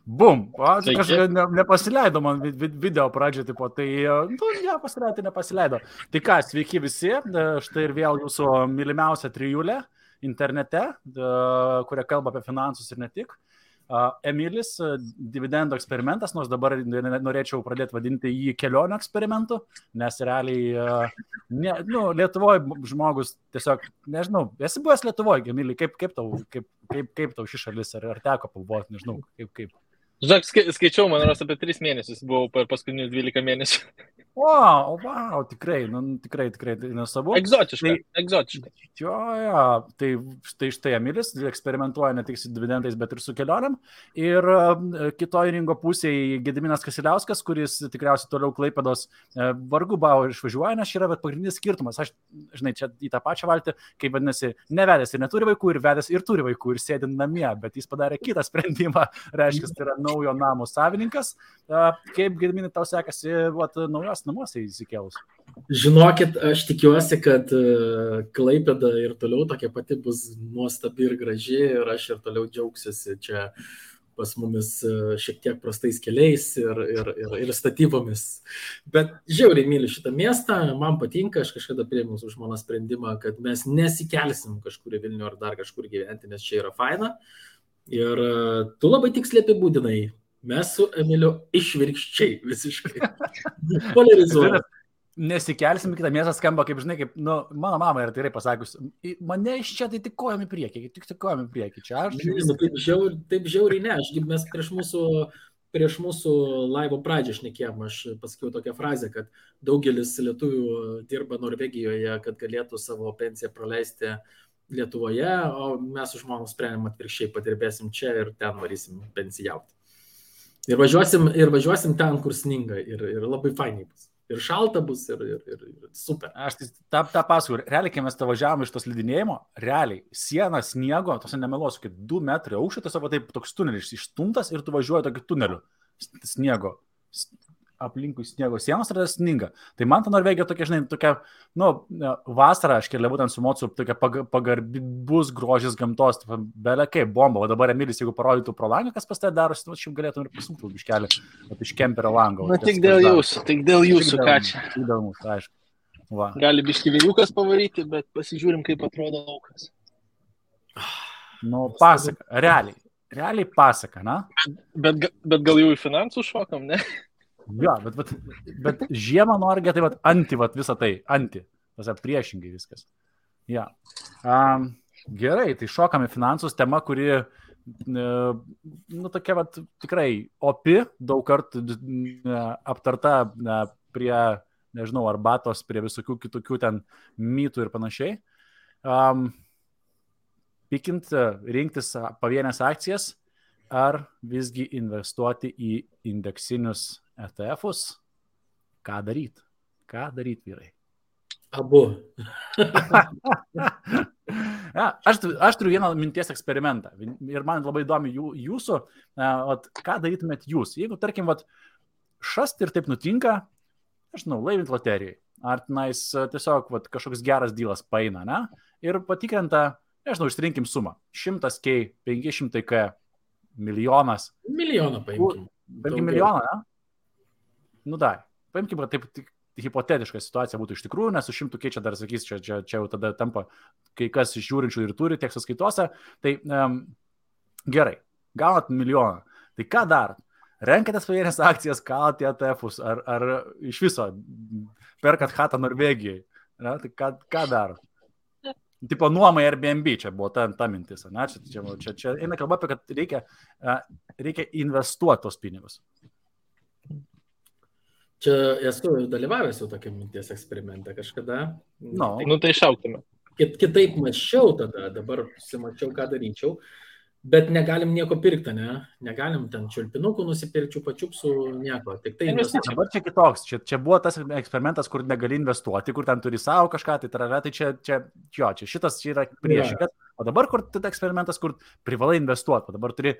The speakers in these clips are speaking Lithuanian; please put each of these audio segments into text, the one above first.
Bum, Sveiki. kažkaip nepasileido man video pradžioje, tipo, tai, nepasileido, tai nepasileido. Tai ką, sveiki visi, štai ir vėl jūsų mylimiausia trijulė internete, kuria kalba apie finansus ir ne tik. Emilis, dividendo eksperimentas, nors dabar norėčiau pradėti vadinti jį kelionių eksperimentu, nes realiai, Lietuvoje žmogus tiesiog, nežinau, esi buvęs Lietuvoje, Emili, kaip tau ši šalis, ar teko pabuvoti, nežinau, kaip. Žinok, skaičiau, man rodos, apie 3 mėnesius buvau per paskutinius 12 mėnesių. Wow, tikrai, tai nesabu. Egzotiška. Jo, tai štai Emilis eksperimentuoja ne tik su dividendais, bet ir su kelioniam. Ir kitoj ringo pusėje Gediminas Kasiliauskas, kuris tikriausiai toliau Klaipėdos vargu bau išvažiuoja, nes yra pagrindinis skirtumas. Aš, žinai, čia į tą pačią valtį, kaip vadinasi, nevedęs ir neturi vaikų, ir vedęs ir turi vaikų, ir sėdi namie, bet jis padarė kitą sprendimą, reiškia, tai yra naujo namo savininkas. Kaip, Gediminai, tau sekasi naujos namuose įsikėlus? Žinokit, aš tikiuosi, kad Klaipėda ir toliau tokia pati bus nuostabi ir graži ir aš ir toliau džiaugsiuosi čia pas mumis šiek tiek prastais keliais ir statybomis. Bet žiauriai myliu šitą miestą, man patinka, aš kažkada priėmiau su žmona sprendimą, kad mes nesikelsim kažkur į Vilnių ar dar kažkur gyventi, nes čia yra faina. Ir tu labai tiksliai apibūdinai. Mes su Emiliu išvirkščiai visiškai polarizuojame. Nesikelsim, kitą miestą skamba, kaip žinai, kaip, mano mama yra tikrai pasakius, mane iš čia tai tik kojam į priekį, čia aš. Taip žiauriai ne, mes prieš mūsų laivo pradžią šnekėjom, aš pasakiau tokią frazę, kad daugelis lietuvių dirba Norvegijoje, kad galėtų savo pensiją praleisti Lietuvoje, o mes su žmona sprendėm atvirkščiai, padirbėsim čia ir ten varysim pensijauti. Ir važiuosim ten, kur sninga ir labai fainiai bus. Ir šalta bus, ir super. Aš tą pasakoju. Realiai, kai mes važiavome iš tos slidinėjimo, realiai siena sniego, tos nemeluosiu, 2 metrai aukščio, tiesiog taip toks tunelis išstumtas ir tu važiuoji tokiu tuneliu sniego. Aplinkui sniego sienos ir sninga. Tai man ta Norvegija tokia, žinai, tokia, vasara, aš keliavau ten su mocu, tokia pagarbus grožis gamtos, belė kaip bomba. O dabar Emilis, jeigu parodytų pro langą, kas pas tai darosi, šiaip galėtum ir pasukti biškelį, iš kemperio lango. Tik dėl jūsų, ką čia. Tik dėl mūsų, aišku. Va. Gali biški vėjukas pavaryti, bet pasižiūrim, kaip atrodo laukas. Pasaka, realiai pasaka, na? Bet gal jau į finansų šokam, ne? Jo, bet žiemą Norge, tai anti visą tai, priešingai viskas. Ja. Gerai, tai šokame finansus, tema, kuri, tokia tikrai opi, daug kartų aptarta prie, nežinau, arbatos, prie visokių kitokių ten mytų ir panašiai. Pikint, rinktis pavienės akcijas, ar visgi investuoti į indeksinius ETF-us, ką daryt, vyrai? Abu. Aš turiu vieną minties eksperimentą ir man labai įdomi jūsų, ką darytumėt jūs, jeigu, tarkim, šast ir taip nutinka, nežinau, laimint loterijai, ar tenais tiesiog kažkoks geras dylas paeina, ne? Ir patikrenta, nežinau, išrinkim sumą, 100K, 500K, milijonas. Milijoną paimkim. Paimkim milijoną, ne? Paimkim, kad taip hipotetiška situacija būtų iš tikrųjų, nes su 100K čia dar sakys, čia jau tada tampa kai kas iš žiūrinčių ir turi tiek sąskaitose. Tai gerai, gaunat milijoną. Tai ką darot? Renkatės pavienės akcijas, kalat į ETF-us, ar iš viso perkat chatą Norvegijai? Ne? Tai ką darot? Tipo nuomai Airbnb, čia buvo ta mintis. Ne? Čia eina kalba apie, kad reikia investuoti tos pinigus. Čia esu dalyvavęs jau tokia minties eksperimente kažkada. Tai šauktume. Kitaip mačiau tada, dabar susimačiau, ką daryčiau, bet negalim nieko pirkti, ne? Negalim ten čiulpinukų nusipirkčių, pačiupsų, nieko. Tik tai dabar čia kitoks. Čia buvo tas eksperimentas, kur negali investuoti, kur ten turi savo kažką, tai šitas čia yra priešingas. O dabar, kur tai eksperimentas, kur privalai investuoti, o dabar turi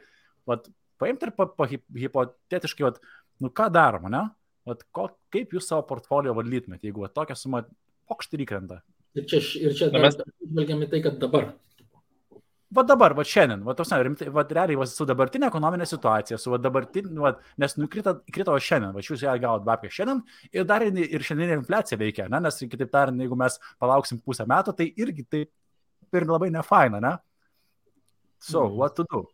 paimti ir hipotetiškai, ką daroma, ne? Kaip jūs savo portfolio valdytumėte, jeigu tokią sumą pokštį įkrenta? Ir čia žvelgiam į tai, kad dabar. Va dabar, va šiandien, va tos, rimtai, va realiai, va su dabartinė ekonominė situacija, su va dabartinė, va, nes krito šiandien, va jūs ją gavot babkę šiandien ir dar ir šiandieninė infliacija veikia, ne, nes kitaip tariant, jeigu mes palauksim pusę metų, tai irgi tai ir labai nefaina, ne? So, what to do?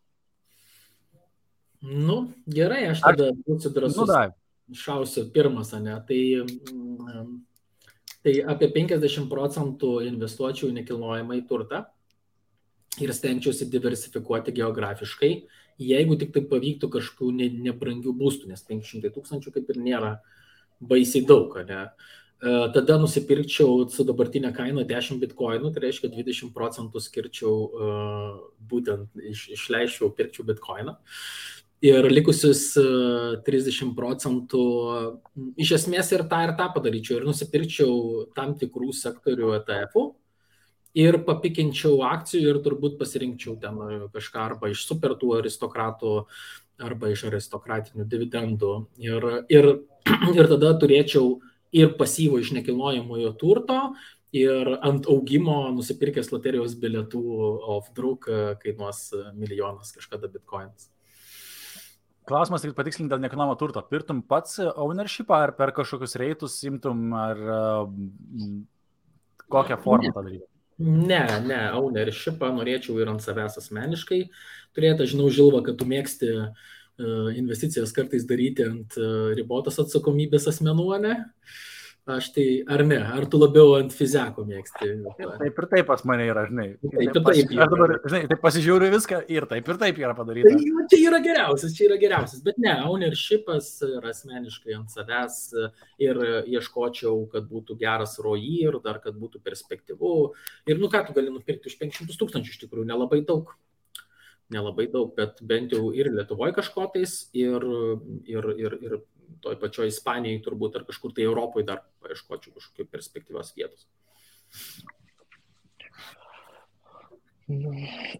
Nu, gerai, aš tada būsiu drąsus. Nu, Šausiu pirmas, ne? Tai apie 50% investuočiau į nekilnojamą į turtą ir stengčiausi diversifikuoti geografiškai, jeigu tik tai pavyktų kažkokių nebrangių būstų, nes 500 000 kaip ir nėra baisiai daug, ne? Tada nusipirkčiau su dabartinė kaina 10 bitkoinų, tai reiškia 20% skirčiau, būtent išleičiau, pirkčiau bitkoiną. Ir likusius 30% iš esmės ir tą padaryčiau. Ir nusipirkčiau tam tikrų sektorių ETF-ų ir papikinčiau akcijų ir turbūt pasirinkčiau ten kažką arba iš supertų aristokratų, arba iš aristokratinių dividendų. Ir tada turėčiau ir pasyvo iš nekilnojamojo turto, ir ant augimo nusipirkęs loterijos bilietų off-druk kainuos milijonas kažkada bitkoinas. Klausimas tik patikslinti dėl nekilnojamo turto. Pirtum pats ownershipą ar per kažkokius reitus imtum ar kokią formą tą daryti? Ne, ownershipą norėčiau ir ant savęs asmeniškai turėti. Aš žinau, Žilva, kad tu mėgsti investicijas kartais daryti ant ribotos atsakomybės asmenų, ne? Aš tai, ar ne? Ar tu labiau ant fizeko mėgsti? Taip ir taip pas mane yra, žinai. Taip. Aš dabar, žinai, taip pasižiūriu viską ir taip yra padaryta. Tai čia yra geriausias, bet ne, ownershipas ir asmeniškai ant savęs ir ieškočiau, kad būtų geras ROI ir dar, kad būtų perspektyvu. Ir ką tu gali nupirkti už 500 000 iš tikrųjų, nelabai daug, bet bent jau ir Lietuvoje kažkotais ir toj pačioj Ispanijai turbūt ar kažkur tai Europoje dar paieškočiau kažkokių perspektyvios vietos.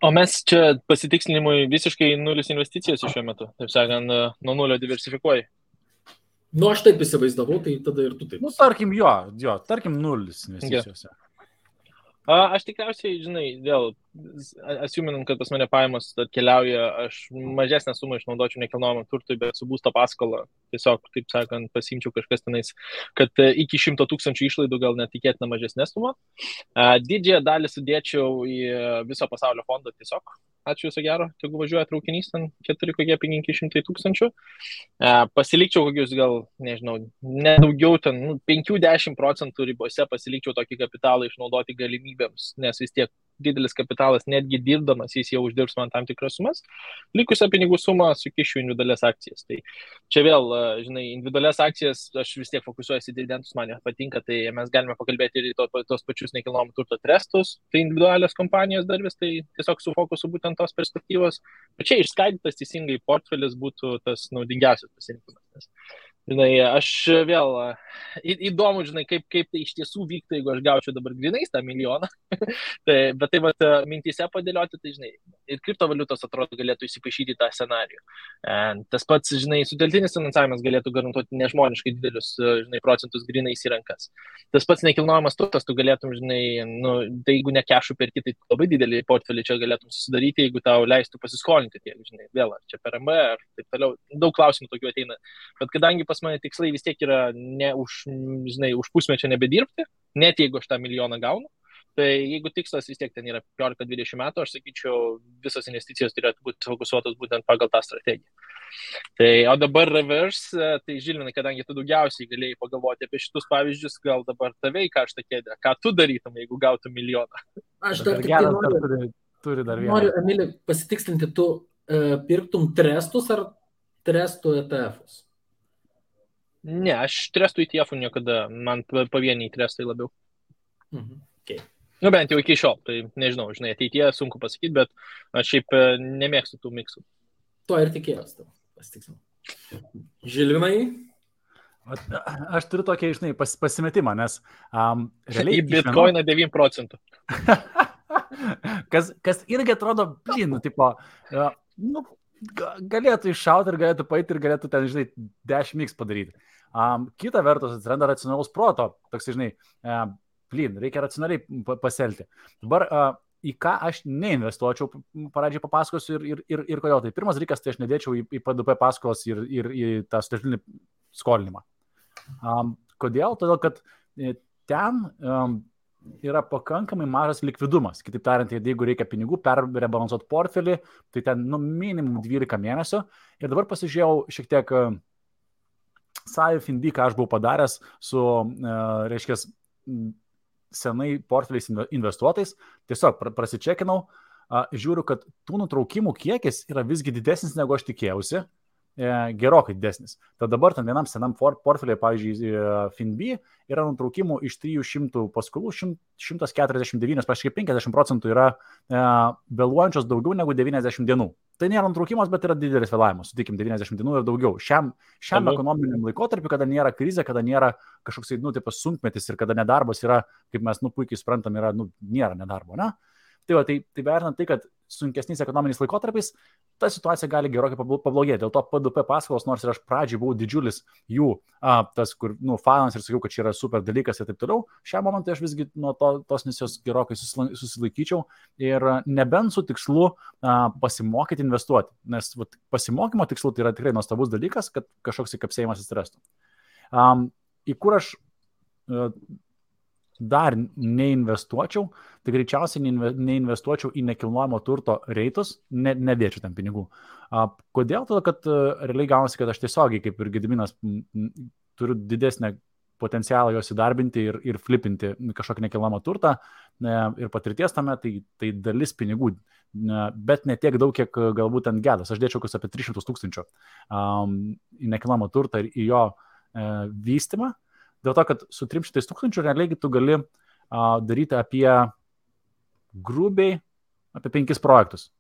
O mes čia pasitikslinimui visiškai nulis investicijos šiuo metu, taip sakant, nuo nulio diversifikuoji. Nu, aš taip įsivaizdavau, tai tada ir tu taip. Nu, tarkim, tarkim nulis investicijose. Aš tikriausiai, žinai, vėl, asiuminant, kad pas mane pajamos atkeliauja, aš mažesnę sumą išnaudočiau nekilnojamam turtui, bet su būsto paskola tiesiog, taip sakant, pasiimčiau kažkas tenais, kad iki 100 000 išlaidų gal netikėtina mažesnė suma. Didžiąją dalį sudėčiau į viso pasaulio fondą tiesiog. Ačiū viso gero, jeigu važiuoja traukinys, ten 400 000. Pasilikčiau kokius gal, nežinau, nedaugiau ten 5-10% ribose pasilikčiau tokį kapitalą išnaudoti galimybėms, nes vis tiek didelis kapitalas, netgi dirbdamas, jis jau uždirbs man tam tikras sumas. Likusią pinigų sumą sukišiu individualias akcijas. Tai čia vėl, žinai, individualias akcijas aš vis tiek fokusuojuosi dividendus, man patinka, tai mes galime pakalbėti ir tos pačius nekilnojamo turto trestus, tai individualios kompanijos dar vis, tai tiesiog su fokusu būtent tos perspektyvos. Bet čia išskaidytas teisingai portfelis būtų tas naudingiausias pasirinkimas. Žinai, aš vėl įdomu, žinai, kaip tai iš tiesų vyktų, jeigu aš gaučiau dabar grinais tą milijoną. Bet tai vat, mintise padėlioti, tai žinai, ir kriptovaliutos atrodo galėtų įsipaišyti tą scenarijų. Tas pats, žinai, sutelktinis finansavimas galėtų garantuoti nežmoniškai didelius, žinai, procentus grinais į rankas. Tas pats nekilnojamas turtas, tu galėtum, žinai, tai jeigu ne kešų perki, tai labai didelį portfelį čia galėtum susidaryti, jeigu tau leistų pasiskolinti tiek, žinai, vėl, ar čia per MB, ar taip toliau. Daug klausimų tokių ateina. Bet kadangi pas mane tikslai vis tiek yra ne už pusmečio nebedirbti, net jeigu aš tą milijoną gaunu, tai jeigu tikslas vis tiek ten yra 15-20 metų, aš sakyčiau, visos investicijos turėtų būti fokusuotos būtent pagal tą strategiją. Tai, o dabar reverse, tai Žilvinai, kadangi tu daugiausiai galėjai pagalvoti apie šitus pavyzdžius, gal dabar tave į karštą kėdę, ką tu darytum, jeigu gautum milijoną? Aš dar tik noriu, Emilį, pasitikslinti, tu pirktum trestus ar trestų ETF-us? Ne, aš trestų ETF-ų niekada, man pavieniai trestai labiau. Okay. Nu, bent jau iki šiol, tai nežinau, žinai, ateityje sunku pasakyti, bet aš šiaip nemėgstu tų miksų. To ir tikėjos, pasitiksinu. Žilvinai? Aš turiu tokį, žinai, pasimetimą, nes realiai... Į bitcoiną 9%. kas irgi atrodo, tipo, galėtų iššauti ir galėtų paeiti ir galėtų ten, žinai, 10x padaryti. Kita vertus atsiranda racionalaus proto, toks, žinai, reikia racionaliai pasielgti. Dabar į ką aš neinvestuočiau, pradžiai papasakosiu ir kodėl. Tai pirmas dalykas, tai aš nedėčiau į PDP paskolas ir į tą sutartinį skolinimą. Kodėl? Todėl, kad ten yra pakankamai mažas likvidumas. Kitaip tariant, jeigu reikia pinigų perrebalansuoti portfelį, tai ten minimum 12 mėnesių. Ir dabar pasižiūrėjau šiek tiek SAIF-Indy, ką aš buvau padaręs su, reiškia, senai portfeliais investuotais, tiesiog prasičekinau, žiūriu, kad tų nutraukimų kiekis yra visgi didesnis, negu aš tikėjausi, gerokai didesnis. Tad dabar ten vienam senam portfeliai, pavyzdžiui, FinB, yra nutraukimų iš 300 paskolų, 149, praškai 50% yra vėluojančios daugiau negu 90 dienų. Tai nėra nutraukimas, bet yra didelis vėlavimas, sutikim, 90 dienų ir daugiau. Šiam ekonominiam laikotarpiu, kada nėra krizė, kada nėra kažkoks, tipas sunkmetis ir kada nedarbas yra, kaip mes, puikiai suprantam, yra, nėra nedarbo, ne? Tai vertinant tai, kad sunkesniais ekonominiais laikotarpiais, ta situacija gali gerokai pablogėti. Dėl to PDP paskolos, nors ir aš pradžiai buvau didžiulis jų, tas, kur, fanas ir sakiau, kad čia yra super dalykas ir taip toliau, šią momentą aš visgi nuo tos misijos gerokai susilaikyčiau ir nebent su tikslu pasimokyti investuoti. Nes pasimokymo tikslu tai yra tikrai nuostabus dalykas, kad kažkoks įkapsėjimas atsirastų. Į kur aš dar neinvestuočiau, tai greičiausiai neinvestuočiau į nekilnojamo turto reitus, nedėčiau ten pinigų. Kodėl? Todėl, kad realiai gaunasi, kad aš tiesiogiai, kaip ir Gediminas, turiu didesnę potencialą jos įdarbinti ir flipinti kažkokį nekilnojamą turtą ir patirties tame, tai dalis pinigų, bet ne tiek daug, kiek galbūt ant gedas. Aš dėčiau apie 300 000 į nekilnojamą turtą ir į jo vystymą. Dėl to, kad su 300 000 realiai tu gali daryti apie grubiai apie 5 projektus.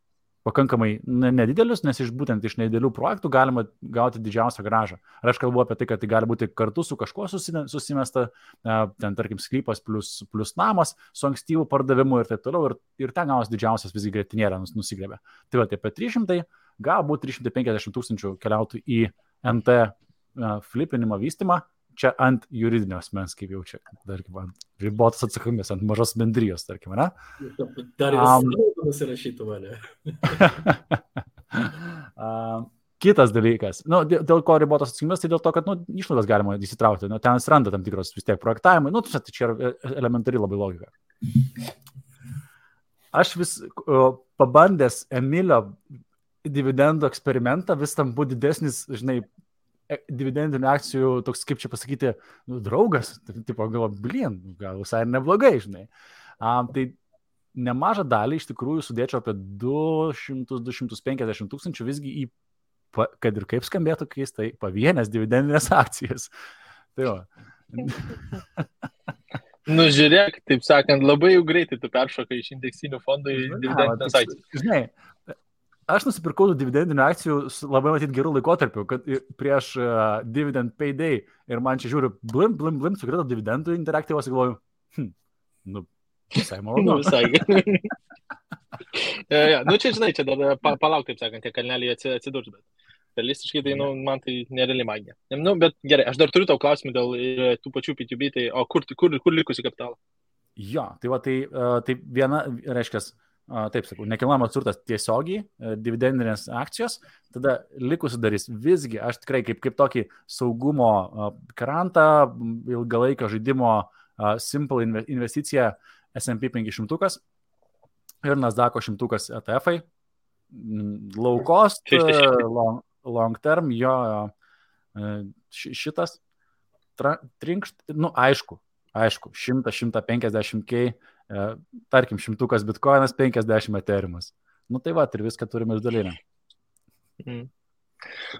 Pakankamai nedidelius, nes būtent iš nedidelių projektų galima gauti didžiausią grąžą. Ar aš kalbu apie tai, kad tai gali būti kartu su kažkuo susimesta, ten tarkim sklypas plus namas, su ankstyvų pardavimu ir taip toliau, ir ten gaunas didžiausias visgi grėtinėlė nusigrėbė. Tai apie 300, galbūt 350 000 keliautų į NT flipinimo vystymą, čia ant juridinio asmens, kaip jau čia, tarkim, ant ribotos atsakomybės, ant mažos bendrijos, tarkim, ne? Dar ir nusirašytų mane. Kitas dalykas, dėl ko ribotos atsakomybės, tai dėl to, kad išlaidas galima įsitraukti, ten atsiranda tam tikros vis tiek projektavimai, tai čia yra elementari labai logika. Aš vis pabandęs Emilio dividendų eksperimentą, vis tam buvo didesnis, žinai, dividendinių akcijų, toks, kaip čia pasakyti, draugas, tipo, gal visai neblogai, žinai. Tai nemažą dalį iš tikrųjų sudėčiau apie 200-250 000 visgi į, kad ir kaip skambėtų keistai, pavienės dividendinės akcijas. Tai va. Žiūrėk, taip sakant, labai jau greitai tu peršokai iš indeksinių fondų į dividendinės akcijas. Žinai, aš nusipirkau dividendinių akcijų labai matyti gerų laikotarpių, kad prieš dividend payday ir man čia žiūriu, blim, sukrito dividendų interaktyvos ir galvoju, visai malonu. Visai. Čia, žinai, čia dar palauk, taip sakant, tie kalneliai atsidurs, bet realistiškai tai, man tai nereali magija. Bet gerai, aš dar turiu tau klausimų dėl tų pačių P2B, tai o kur likusi kapitalą? Jo, tai viena, reiškia, taip sakau, nekilnojamas turtas tiesiogiai, dividendinės akcijos, tada likusi darys visgi, aš tikrai kaip tokį saugumo krantą, ilgalaikio žaidimo simple investicija S&P 500 ir Nasdaq'o 100 ETF-ai, low cost, long term, jo šitas trinkšt, aišku, 100-150K, tarkim, 100 bitcoinas, 50 eteriumas. Tai va, ir viską turime išdalinę.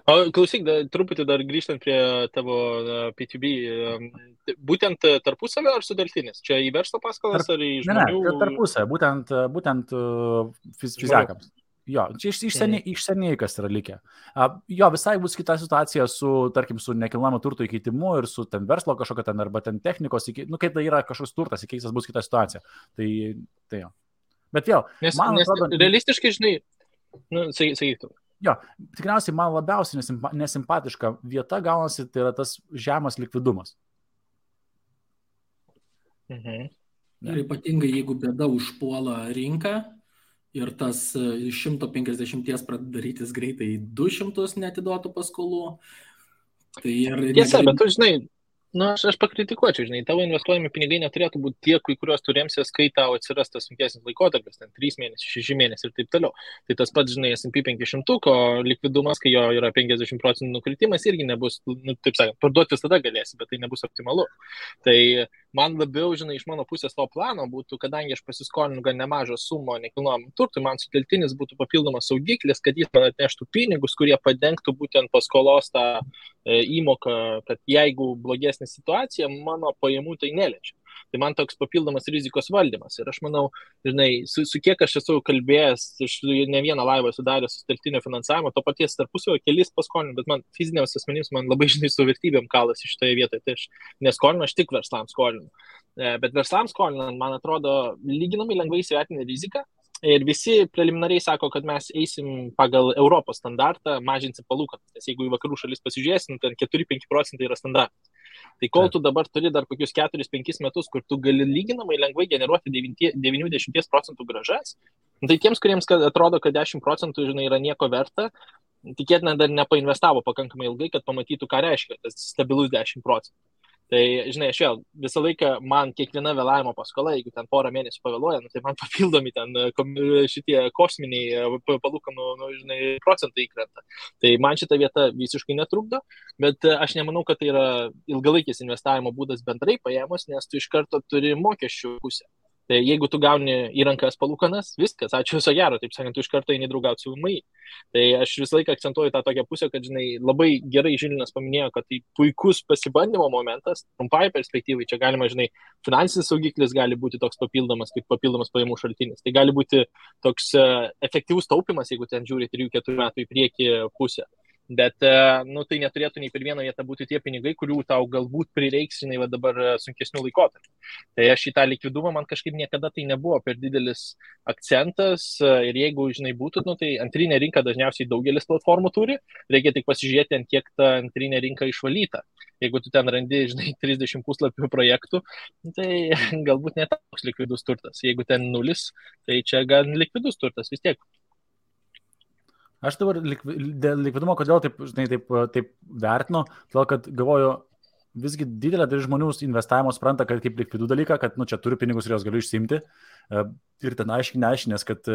O klausyk, truputį dar grįžtant prie tavo P2B, būtent tarpusavio ar sudartinis? Čia į verslo paskolas ar į žmonių? Ne, tarpusavio, būtent fizikams. Jo, čia iš seniai kas yra likę. Jo, visai bus kita situacija tarkim, su nekilnojamo turto įkeitimu ir su ten verslo kažkokio ten arba ten technikos, kai tai yra kažkoks turtas įkeistas, bus kita situacija. Tai jo. Bet vėl, man atrodo... Realistiškai, žinai, sakytum. Jo, tikriausiai man labiausiai nesimpatiška vieta gaunasi, tai yra tas žemas likvidumas. Ir ypatingai, jeigu bėda užpuola rinką ir tas iš 150 pradeda darytis greitai 200 neatiduotų paskolų. Tai Tiesa, bet tu žinai, aš pakritikuočiau, žinai, tavo investuojami pinigai neturėtų būti tie, kuriuos turėmsies, kai tau atsiras tas sunkesnis laikotarpis, ten 3 mėnesiai, 6 mėnesiai ir taip toliau. Tai tas pats, žinai, S&P 500 likvidumas, kai jo yra 50% nukritimas, irgi nebus, taip sakant, parduoti tada galėsi, bet tai nebus optimalu. Tai man labiau, žinai, iš mano pusės to plano būtų, kadangi aš pasiskolinu gan nemažą sumą nekilnojamam turtui, man sutelktinis būtų papildomas saugiklis, kad jis man atneštų pinigus, kurie padengtų būtent paskolos tą įmoką, kad jeigu blogesnė situacija, mano pajamų tai neliečia. Tai man toks papildomas rizikos valdymas. Ir aš manau, žinai, su kiek aš esu kalbėjęs, aš ne vieną laivą sudaręs sutelktinio finansavimo, to paties tarpusavio kelis paskolinu, bet man fiziniams asmenims man labai, žinai, su vertybėm kalasi šitoje vietoje. Tai aš neskolinu, aš tik verslams skolinu. Bet verslams skolinant, man atrodo, lyginamai lengvai įsivertinę riziką. Ir visi preliminariai sako, kad mes eisim pagal Europos standartą, mažinsim palūkanas. Nes jeigu į vakarų šalis pasižiūrėsim, ten 4-5% yra standartas. Tai kol tu dabar turi dar kokius 4-5 metus, kur tu gali lyginamai lengvai generuoti 90% gražas, tai tiems, kuriems atrodo, kad 10% žinai, yra nieko verta, tikėtina dar nepainvestavo pakankamai ilgai, kad pamatytų, ką reiškia tas stabilus 10%. Tai, žinai, aš vėl visą laiką man kiekviena vėlavimo paskola, jeigu ten porą mėnesių pavėluoja, tai man papildomi ten šitie kosminiai palūkanų, žinai, procentai įkrenta. Tai man šita vieta visiškai netrukdo, bet aš nemanau, kad tai yra ilgalaikis investavimo būdas bendrai paėmus, nes tu iš karto turi mokesčių pusę. Tai jeigu tu gauni į rankas palūkanas, viskas, ačiū viso gero, taip sakant, tu iš karto eini draugauti su VMI. Tai aš visą laiką akcentuoju tą tokią pusę, kad, žinai, labai gerai Žilinas paminėjo, kad tai puikus pasibandymo momentas, trumpai perspektyvai, čia galima, žinai, finansinis saugiklis gali būti toks papildomas, kaip papildomas pajamų šaltinis. Tai gali būti toks efektyvus taupimas, jeigu ten žiūri 3-4 metų į priekį pusę. Bet tai neturėtų nei per vieną vietą būti tie pinigai, kurių tau galbūt prireiks, žinai, dabar sunkesnių laikotarpių. Tai aš į tą likvidumą man kažkaip niekada tai nebuvo per didelis akcentas ir jeigu, žinai, būtų, tai antrinė rinka dažniausiai daugelis platformų turi, reikia tik pasižiūrėti, ant kiek ta antrinė rinka išvalyta. Jeigu tu ten randi, žinai, 30 puslapių projektų, tai galbūt ne toks likvidus turtas. Jeigu ten 0, tai čia gan likvidus turtas vis tiek. Aš dabar dėl likvidumo, kodėl taip vertinu, todėl kad galvoju, visgi didelė dalis žmonių investavimo supranta, kad kaip likvidų dalyką, kad čia turiu pinigus ir jos galiu išsiimti ir ten aiškinės, kad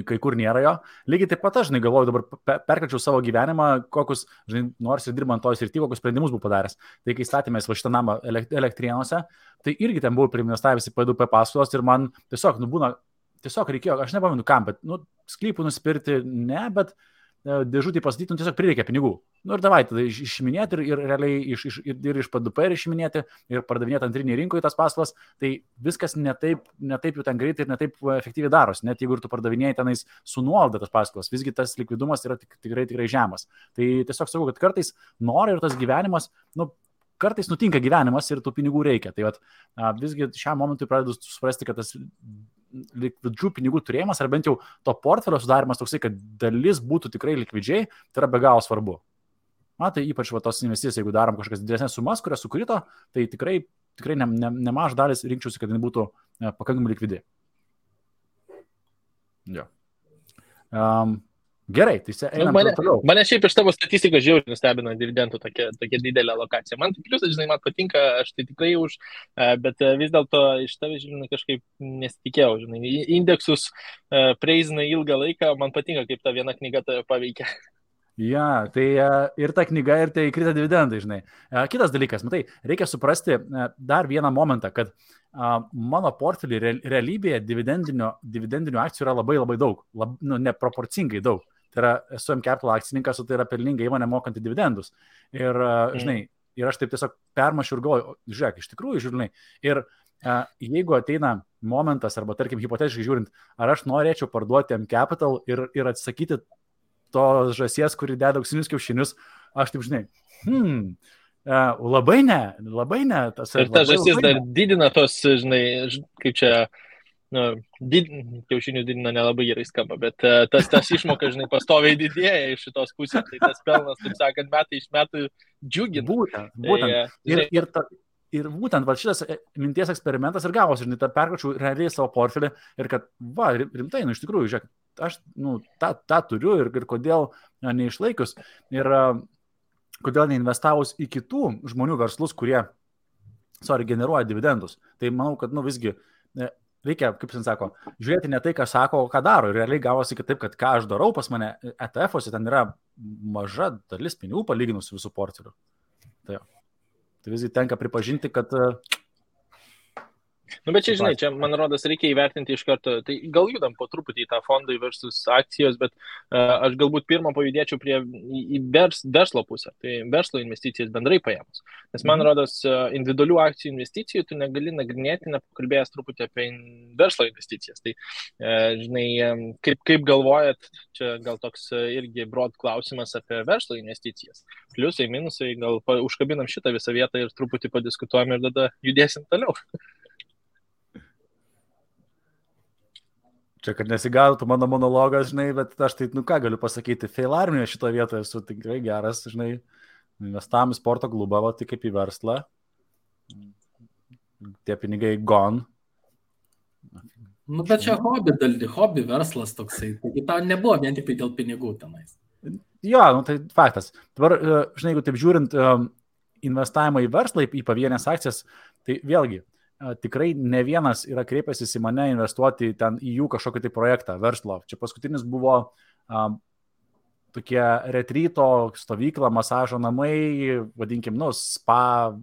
kai kur nėra jo. Lygiai taip pat aš, žinai, galvoju, dabar perkelčiau savo gyvenimą, kokius, žinai, nors ir dirbant toj srity, kokius sprendimus buvau padaręs. Tai kai statėmės va šitą namą Elektrėnuose, tai irgi ten buvau priinvestavęs į P2P paskolas ir man tiesiog reikėjo, aš nepamenu kam, bet sklypų nusipirkti ne, bet dėžutį pastatyti, tiesiog prireikia pinigų. Ir davai tada išiminėti ir realiai ir iš P2P išiminėti ir pardavinėti antrinį rinkoje tas paskolas, tai viskas ne taip jau ten greitai ir ne taip efektyviai darosi, net jeigu ir tu pardavinėjai tenais su nuolaida tas paskolas, visgi tas likvidumas yra tikrai žemas. Tai tiesiog sakau, kad kartais nori ir tas gyvenimas, kartais nutinka gyvenimas ir tų pinigų reikia. Tai visgi šiam momentui pradedu suprasti, kad tas likvidžių pinigų turėjimas, ar bent jau to portfelio sudarimas toksai, kad dalis būtų tikrai likvidžiai, tai yra be galo svarbu. Tai ypač tos investicijas, jeigu darom kažkokias didesnės sumas, kurias sukrito, tai tikrai nemaž dalis rinkčiausi, kad jis būtų pakankamai likvidi. Jo. Gerai, tai einam toliau. Mane šiaip iš tavo statistikos žiauriai nustebino dividendų tokia didelė alokacija. Man tai pliusas, žinai, man patinka, aš tai tikrai už, bet vis dėlto iš tavęs, žinai, kažkaip nesitikėjau, žinai, indeksus preizina ilgą laiką, man patinka, kaip ta viena knyga tave paveikia. Ja, tai ir ta knyga, ir tai krita dividendai, žinai. Kitas dalykas, matai, reikia suprasti dar vieną momentą, kad mano portfelį realybėje dividendinių akcijų yra labai labai daug, neproporcingai daug. Tai yra, esu M-Capital akcininkas, o tai yra pelninga įmonė mokanti dividendus. Ir, žinai, ir aš taip tiesiog permašiu ir galvoju, žiūrėk, iš tikrųjų, žinai, ir jeigu ateina momentas, arba tarkim, hipotetiškai žiūrint, ar aš norėčiau parduoti M-Capital ir atsisakyti to žąsies, kuri deda auksinius kiaušinius, aš taip, žinai, labai ne. Ir ta žąsis dar didina tos, žinai, kaip čia, kiaušinius didina nelabai gerai skamba, bet tas išmoka, žinai, pastoviai didėja iš šitos pusės, tai tas pelnas, taip sakant, metai iš metų džiugina. Būtent. Ir būtent va, šitas minties eksperimentas ir gavosi, žinai, perkračiau realiai savo portfelį ir kad, va, rimtai, iš tikrųjų, žiūrėk, aš tą turiu ir kodėl neišlaikius ir kodėl neinvestavus į kitų žmonių verslus, kurie, generuoja dividendus. Tai manau, kad, visgi reikia, kaip jis sako, žiūrėti ne tai, ką sako, o ką daro. Ir realiai gavosi kitaip, kad ką aš darau pas mane ETF-ose, ten yra maža dalis pinigų palyginus su visų portfeliu. Tai visgi tenka pripažinti, kad... Bet čia, žinai, čia, man rodos, reikia įvertinti iš karto. Tai gal judam po truputį į tą fondai versus akcijos, bet aš galbūt pirmą pajudėčiau į verslo pusę. Tai verslo investicijas bendrai paėmus. Nes man rodos, individualių akcijų investicijų tu negali nagrinėti, nepakalbėjęs truputį apie verslo investicijas. Tai, žinai, kaip galvojat, čia gal toks irgi broad klausimas apie verslo investicijas. Pliusai, minusai, gal užkabinam šitą visą vietą ir truputį padiskutuojam ir tada judėsim toliau. Čia, kad nesigautų mano monologas, žinai, bet aš tai, ką galiu pasakyti, fail armijoje šitoje vietoje esu tikrai geras, žinai, investavom į sporto klubą, tai kaip į verslą, tie pinigai gone. Bet čia hobby verslas toksai, taigi tau nebuvo vien tik dėl pinigų tenais. Jo, tai faktas. Dabar, žinai, jeigu taip žiūrint investavimą į verslą, į pavienės akcijas, tai vėlgi, tikrai ne vienas yra kreipęsis į mane investuoti ten į jų kažkokį tai projektą, verslo. Čia paskutinis buvo tokie retryto stovykla, masažo namai, vadinkim, spa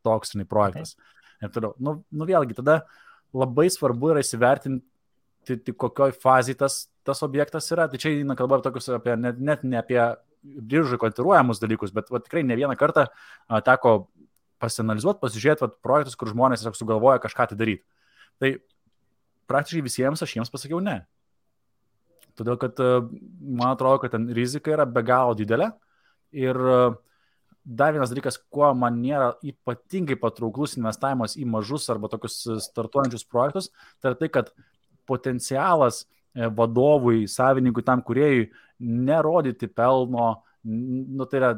toks projektas. Ir toliau. Vėlgi, tada labai svarbu yra įsivertinti, kokioj fazai tas objektas yra. Tai čia eina kalba apie net ne apie biržai kotiruojamus dalykus, bet tikrai ne vieną kartą teko pasianalizuoti, pasižiūrėti projektus, kur žmonės tiesiog sugalvoja kažką tai daryti. Tai praktiškai visiems aš jiems pasakiau ne. Todėl, kad man atrodo, kad ten rizika yra be galo didelė. Ir dar vienas dalykas, kuo man nėra ypatingai patrauklus investavimas į mažus arba tokius startuojančius projektus, tai yra tai, kad potencialas vadovui, savininkui, tam kūrėjui nerodyti pelno, tai yra,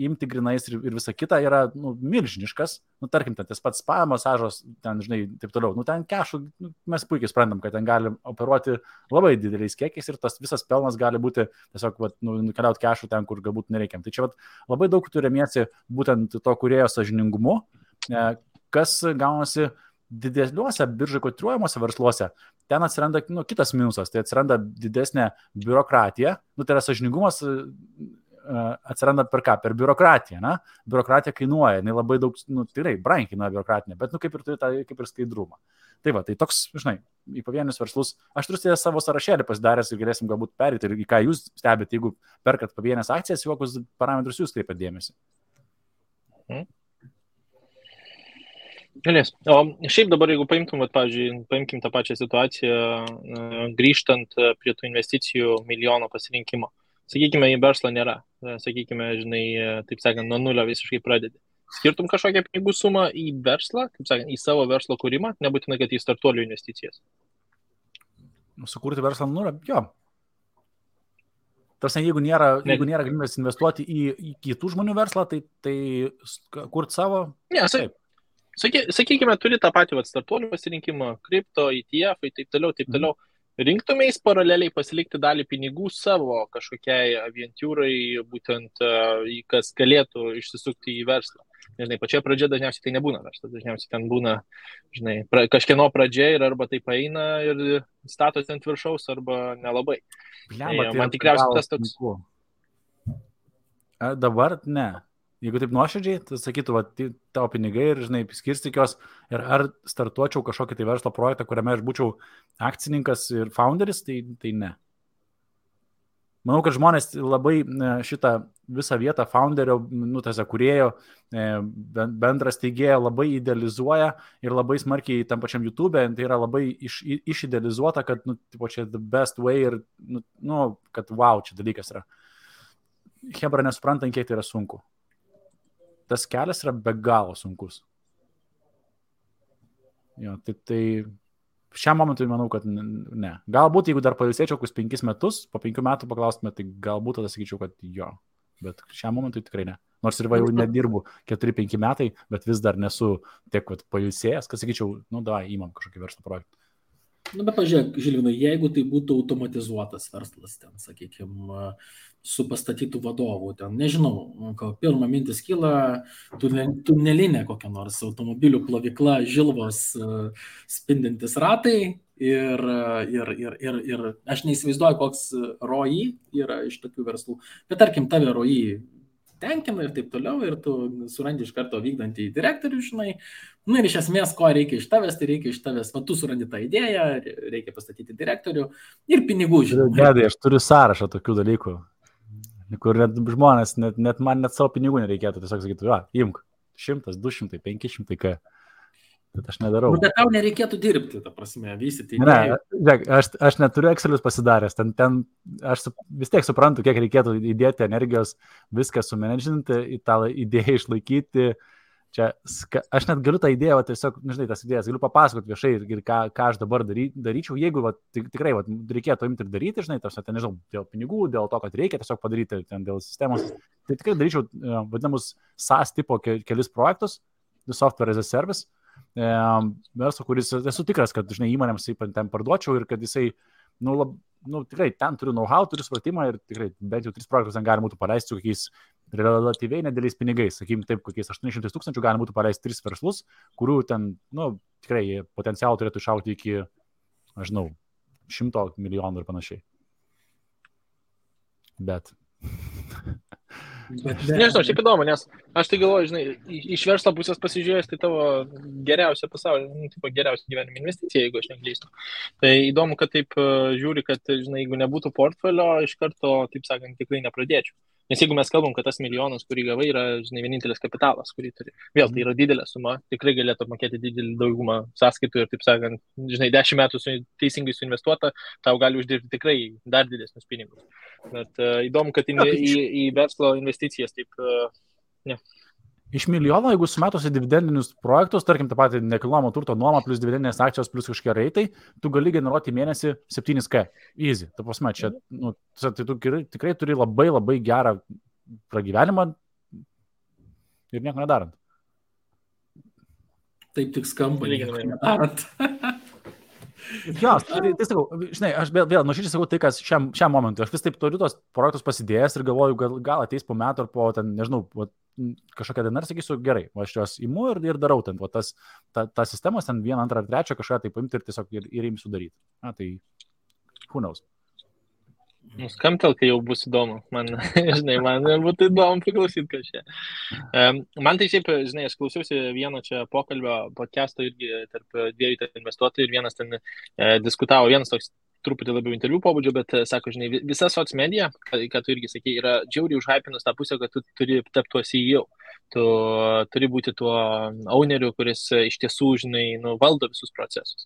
imti grinais ir visa kita yra, milžiniškas. Tarkim, tas pats spa masažas, ten, žinai, taip toliau. Ten kešų, mes puikiai suprantam, kad ten gali operuoti labai dideliais kiekiais ir tas visas pelnas gali būti tiesiog, nukeliauti kešų ten, kur galbūt nereikiam. Tai čia, labai daug turėmiesi būtent to kūrėjo sąžiningumu, kas gaunasi dideliuose biržai kotiruojamuose versluose. Ten atsiranda kitas minusas, tai atsiranda didesnė biurokratija. Tai yra sąžiningumas atsiranda per ką? Per biurokratiją. Biurokratija kainuoja, jinai labai daug, tikrai brangiai kainuoja biurokratinė, bet kaip ir turi kaip ir skaidrumą. Tai tai toks, žinai, į pavienius verslus, aš turiu savo sąrašėlį pasidaręs ir galėsim galbūt perėti ir į ką jūs stebite, jeigu perkat pavienės akcijas, į kokius parametrus jūs kreipiat dėmesį. Galės. O šiaip dabar, jeigu paimtum, paimkim tą pačią situaciją, grįžtant prie tų investicijų milijono pasirinkimo. Sakykime, į verslą nėra. Sakykime, žinai, taip sakant, nuo nulio visiškai pradedi. Skirtum kažkokią pinigų sumą į verslą, taip sakant, į savo verslo kūrimą, nebūtinai, kad į startuolių investicijas. Sukurti verslą nulio, jo. Tarsi, jeigu nėra galimybės investuoti į kitų žmonių verslą, tai kurti savo. Ne, sakykime, turi tą patį startuolių pasirinkimą, kripto, ETF, taip toliau. Rinktumeis paraleliai pasilikti dalį pinigų savo kažkokiai avientūrai, būtent kas galėtų išsisukti į verslą. Žinai, pačioje pradžioje dažniausiai tai nebūna verslas, dažniausiai ten būna, žinai, kažkieno pradžia ir arba tai paeina ir statos ant viršaus, arba nelabai. Man tikriausiai tas toks. Dabar ne. Jeigu taip nuoširdžiai, tai sakytų, tavo pinigai ir, žinai, skirstyk jos ir ar startuočiau kažkokį tai verslo projektą, kuriame aš būčiau akcininkas ir founderis, tai ne. Manau, kad žmonės labai šitą visą vietą founderio, kūrėjo, bendras teigėjo labai idealizuoja ir labai smarkiai tam pačiam YouTube, tai yra labai išidealizuota, kad, čia the best way ir, kad wow, čia dalykas yra. Hebra nesuprantant, kiek tai yra sunku. Tas kelias yra be galo sunkus. Jo, tai šiam momentui manau, kad ne. Galbūt, jeigu dar pailsėčiau kokius 5 metus, po 5 metų paklaustume, tai galbūt tada sakyčiau, kad jo. bet šiam momentui tikrai ne. Nors ir jau nedirbu 4-5 metai, bet vis dar nesu tiek pailsėjęs, kad sakyčiau, įmam kažkokį verslo projektą. Bet pažiūrėk, Žilvinai, jeigu tai būtų automatizuotas verslas, ten, sakykime, su pastatytų vadovų, ten, nežinau, pirmą mintis kyla, tunelinė kokia nors automobilių plovykla, žilvos spindintis ratai ir aš neįsivaizduoju, koks ROI yra iš tokių verslų, bet tarkim, tave ROI tenkina ir taip toliau, ir tu surandi iš karto vykdantį direktorių, žinai, ir iš esmės, ko reikia iš tavęs, tai reikia iš tavęs, tu surandi tą idėją, reikia pastatyti direktorių ir pinigų, žinai. Gedai, aš turiu sąrašą tokių dalykų, kur net žmonės, net man net savo pinigų nereikėtų, tiesiog sakytų, imk, 100, 200, 500, ką. Bet aš nedarau. Bet tau nereikėtų dirbti, ta prasme, vystyti. Ne, aš neturiu Excelius pasidaręs, ten aš vis tiek suprantu, kiek reikėtų įdėti energijos, viską sumenedžinti, į tą idėją išlaikyti. Čia, aš net galiu tą idėją, tiesiog, nežinai, tas idėjas, galiu papasakoti viešai ir ką aš dabar daryčiau, jeigu tikrai reikėtų imti ir daryti, žinai, ten, nežinau, dėl pinigų, dėl to, kad reikia tiesiog padaryti, ten, dėl sistemos, tai tikrai daryčiau vadinamus SaaS tipo kelis projektus, software as a service, verslo, kuris esu tikras, kad, žinai, įmonėms ten parduočiau ir kad jisai, tikrai ten turiu know-how, turiu supratimą ir tikrai bent jau 3 projektus ten galima būtų paleisti su kokiais relatyviai nedėliais pinigais, sakykim taip, kokiais 800 000 galima būtų paleisti 3 verslus, kurių ten, tikrai potencialų turėtų išaugti iki, aš žinau, 100 milijonų ir panašiai. Bet... Nežinau, šiaip įdomu, nes aš tai galvoju, žinai, iš verslo pusės pasižiūrėjęs, tai tavo geriausia pasaulyje, geriausia gyvenimo investicija, jeigu aš neklystu. Tai įdomu, kad taip žiūri, kad, žinai, jeigu nebūtų portfelio, iš karto, taip sakant, tikrai nepradėčiau. Nes jeigu mes kalbam, kad tas milijonas, kurį gavai, yra, žinai, vienintelis kapitalas, kurį turi. Vėl tai yra didelė suma, tikrai galėtų mokėti didelį daugumą sąskaitų ir, taip sakant, žinai, 10 metų teisingai suinvestuota, tau gali uždirbti tikrai dar didesnius pinigus. Bet įdomu, kad į verslo investicijas taip, ne. Iš milijono, jeigu sumetusi dividendinius projektus, tarkim, tą patį nekilnojamo turto nuomą plus dividendinės akcijos plus kažkokie reitai, tu gali generuoti mėnesį 7K. Easy. Ta prasme, čia, tai tu tikrai turi labai labai gerą pragyvenimą ir nieko nedarant. Taip tik skamba, nieko nedarant. Jo, tai sakau, žinai, aš vėl nuoširdžiai sakau tai, kas šiam momentui. Aš vis taip turiu tos projektus pasidėjęs ir galvoju, gal ateis po metų ar po, ten, nežinau, kažkokią dieną ir sakysiu, gerai, aš juos imu ir darau ten, ta sistemos ten 1, 2 ar 3 kažką tai paimti ir tiesiog ir imsiu daryti. Tai who knows. Skambtel, kai jau bus įdomu. Man būtų įdomu priklausyti kažką. Man tai šiaip, žinai, aš klausiausi vieno čia pokalbio podcast'o irgi tarp 2 investuotojų ir vienas ten diskutavo, vienas toks truputį labiau interviu pobūdžio, bet sako, žinai, visa socmedia, ką tu irgi sakei, yra džiauriai užhypinus tą pusę, kad tu turi tapti tuo CEO. Tu turi būti tuo owneriu, kuris iš tiesų, žinai, valdo visus procesus.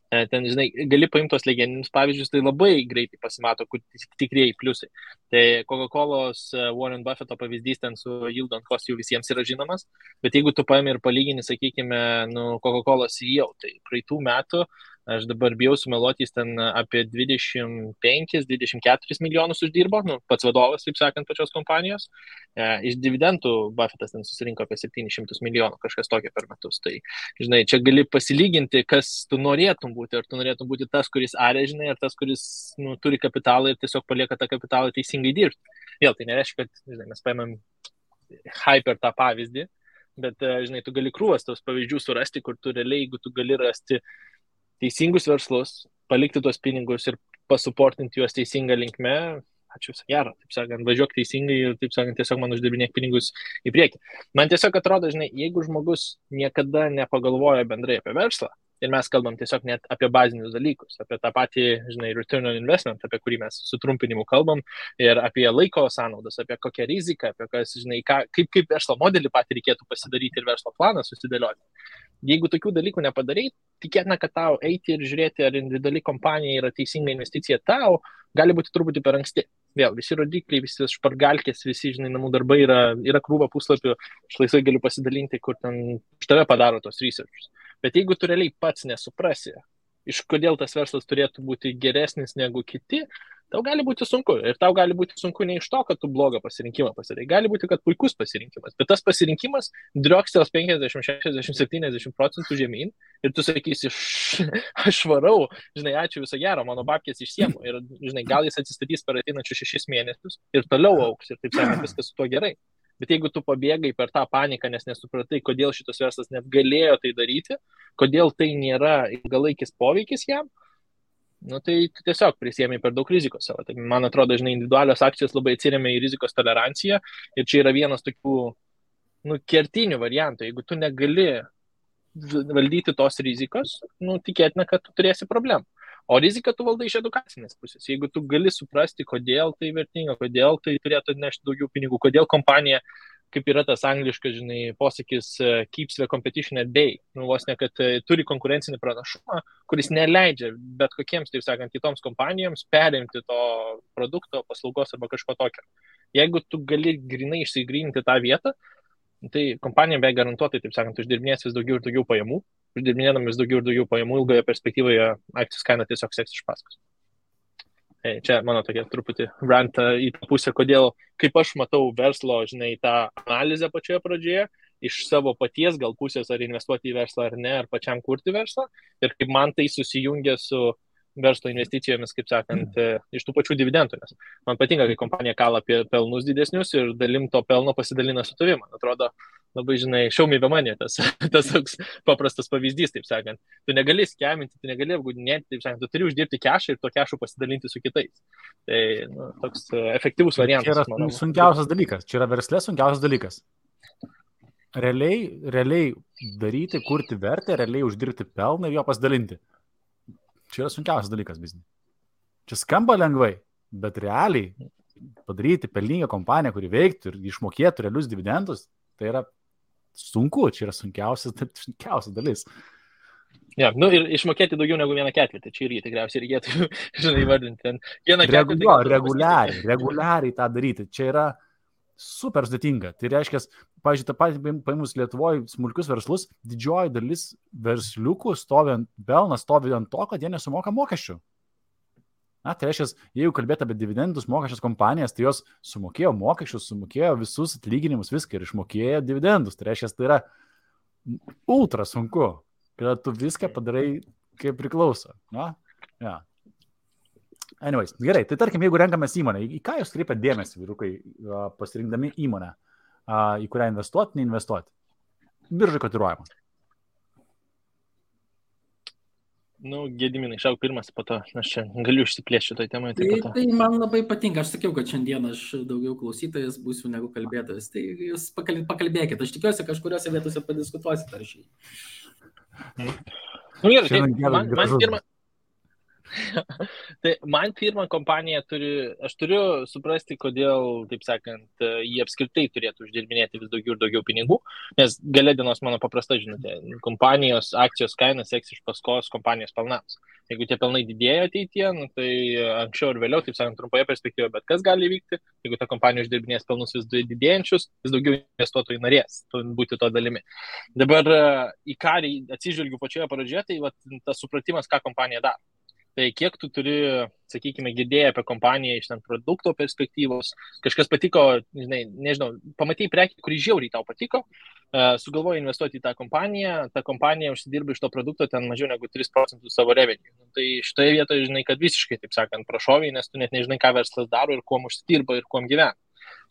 Ten, žinai, gali paimti tos legendinius pavyzdžius, tai labai greitai pasimato, kur tikrieji pliusai. Tai Coca-Colos Warren Buffetto pavyzdys ten su yield on cost jau visiems yra žinomas, bet jeigu tu paimi ir palygini, sakykime, Coca-Colos CEO, tai praeitų metų aš dabar bijau sumeluoti, jis ten apie 25-24 milijonus uždirbo, pats vadovas, taip sakant, pačios kompanijos. Iš dividendų Buffettas ten susirinko apie 700 milijonų, kažkas tokio per metus. Tai, žinai, čia gali pasilyginti, kas tu norėtum būti. Ar tu norėtum būti tas, kuris arė, žinai, ar tas, kuris turi kapitalą ir tiesiog palieka tą kapitalą teisingai dirbti. Vėl, tai nereiškia, kad, žinai, mes paimam hyper tą pavyzdį, bet, žinai, tu gali krūvas tos pavyzdžių surasti, kur tu realiai, jeigu tu gali rasti teisingus verslus, palikti tuos pinigus ir pasuportinti juos teisingą linkme, ačiū, gero, taip sakant, važiuok teisingai ir, taip sakant, tiesiog man uždirbinėk pinigus į priekį. Man tiesiog atrodo, žinai, jeigu žmogus niekada nepagalvoja bendrai apie verslą, ir mes kalbam tiesiog net apie bazinius dalykus, apie tą patį, žinai, return on investment, apie kurį mes sutrumpinimu kalbam, ir apie laiko sąnaudas, apie kokią riziką, apie kas, žinai, kaip verslo modelį patį reikėtų pasidaryti ir verslo planą susidėlioti. Jeigu tokių dalykų nepadarai, tikėtina, kad tau eiti ir žiūrėti, ar individuali kompanija yra teisinga investicija tau, gali būti truputį per anksti. Vėl, visi rodikliai, visi špargalkės, visi, žinai, namų darbai yra krūva puslapių, aš laisvai galiu pasidalinti, kur ten už tave padaro tos researchus. Bet jeigu tu realiai pats nesuprasi, iš kodėl tas verslas turėtų būti geresnis negu kiti, tau gali būti sunku. Ir tau gali būti sunku ne iš to, kad tu blogą pasirinkimą pasidarai. Gali būti, kad puikus pasirinkimas. Bet tas pasirinkimas driokstels 50, 60, 70% žemyn. Ir tu sakysi, aš varau, žinai, ačiū viso gero, mano babkės išsiemu. Ir, žinai, gal jis atsistatys per ateinančius 6 mėnesius ir toliau auks. Ir taip sakant, viskas su tuo gerai. Bet jeigu tu pabėgai per tą paniką, nes nesupratai, kodėl šitas verslas net galėjo tai daryti, kodėl tai nėra ilgalaikis poveikis jam, nu, tai tiesiog prisėmė per daug rizikos savo. Tai, man atrodo, žinai, individualios akcijos labai atsiremia į rizikos toleranciją ir čia yra vienas tokių kertinių variantų. Jeigu tu negali valdyti tos rizikos, tikėtina, kad tu turėsi problemų. O riziką tu valdai iš edukacinės pusės. Jeigu tu gali suprasti, kodėl tai vertinga, kodėl tai turėtų nešti daugiau pinigų, kodėl kompanija, kaip yra tas angliškas, žinai, posakis keeps the competition at bay. Vos ne, kad turi konkurencinį pranašumą, kuris neleidžia bet kokiems, taip sakant, kitoms kompanijoms perimti to produkto, paslaugos arba kažko tokio. Jeigu tu gali grinai išsigryninti tą vietą, tai kompanija be garantuotai, taip sakant, uždirbinės vis daugiau ir daugiau pajamų. Uždirbinėdami vis daugiau ir daugiau pajamų, ilgoje perspektyvoje akcijos kaina tiesiog seks iš paskos. Čia mano tokia truputį rantą į tą pusę, kodėl, kaip aš matau verslo, žinai, tą analizę pačioje pradžioje, iš savo paties gal pusės, ar investuoti į verslą ar ne, ar pačiam kurti verslą, ir kaip man tai susijungia su verslo investicijomis, kaip sakant, iš tų pačių dividendų. Nes man patinka, kai kompanija kala apie pelnus didesnius ir dalim to pelno pasidalina su tavim. Man atrodo, labai, žinai, show me the money, tas toks paprastas pavyzdys, taip sakant. Tu negali skeminti, tu negali apgaudinėti, taip sakant, tu turi uždirbti kešą ir to kešą pasidalinti su kitais. Tai toks efektyvus variantas. Čia yra sunkiausias dalykas, čia yra verslė sunkiausias dalykas. Realiai daryti, kurti vertę, realiai uždirbti pelną ir jo pasidalinti. Čia yra sunkiausias dalykas biznį. Čia skamba lengvai, bet realiai padaryti pelningą kompaniją, kuri veiktų ir išmokėtų realius dividendus, tai yra sunku, čia yra sunkiausias dalis. Ja, ir išmokėti daugiau negu 1/4, čia irgi tikriausiai reikėtų, žinai, įvardinti. Reguliariai tą daryti, čia yra super sudėtinga. Tai reiškia, pavyzdžiui, tą patį paėmus Lietuvoje smulkius verslus, didžioji dalis versliukų pelnas stovi ant to, kad jie nesumoka mokesčių. Tai reiškia, jeigu kalbėt apie dividendus mokesčias kompanijas, tai jos sumokėjo mokesčius, sumokėjo visus atlyginimus, viską ir išmokėjo dividendus. Tai reiškia, tai yra ultra sunku, kad tu viską padarai kaip priklauso. Ja. Anyways, gerai, tai tarkim, jeigu renkamės įmonę, į ką jūs kreipiat dėmesį, vyrukai, pasirinkdami įmonę, į kurią investuoti, neinvestuoti? Biržai kotiruojama. Gediminai, šauk pirmas, po to aš čia galiu išsiplėšti šitoj temai. Tai man labai patinka, aš sakiau, kad šiandien aš daugiau klausytojas būsiu negu kalbėtojas. Tai jūs pakalbėkit, aš tikiuosi, kažkuriuose vietose padiskutuosit ar šį. Gerai, tai man pirmą kompaniją aš turiu suprasti, kodėl, taip sakant, jie apskritai turėtų uždirbinėti vis daugiau ir daugiau pinigų, nes gale dienos mano paprasta žinutė, kompanijos akcijos kainas seks iš paskos kompanijos pelnams. Jeigu tie pelnai didėja ateityje, tai anksčiau ir vėliau, taip sakant, trumpoje perspektyvoje, bet kas gali vykti, jeigu ta kompanija uždirbinės pelnus vis didėjančius, vis daugiau investuotojų norės būti to dalimi. Dabar į ką atsižvelgiu pačioje pradžioje, tai tas supratimas, ką kompanija daro. Tai kiek tu turi, sakykime, girdėję apie kompaniją iš ten produkto perspektyvos, kažkas patiko, nežinau, pamatei prekį, kurį žiauriai tau patiko, sugalvoji investuoti į tą kompaniją užsidirba iš to produkto ten mažiau negu 3% savo revenue. Tai šitoje vietoje, žinai, kad visiškai, taip sakant, prašoviai, nes tu net nežinai, ką verslas daro ir kuom užsidirba ir kuom gyvena.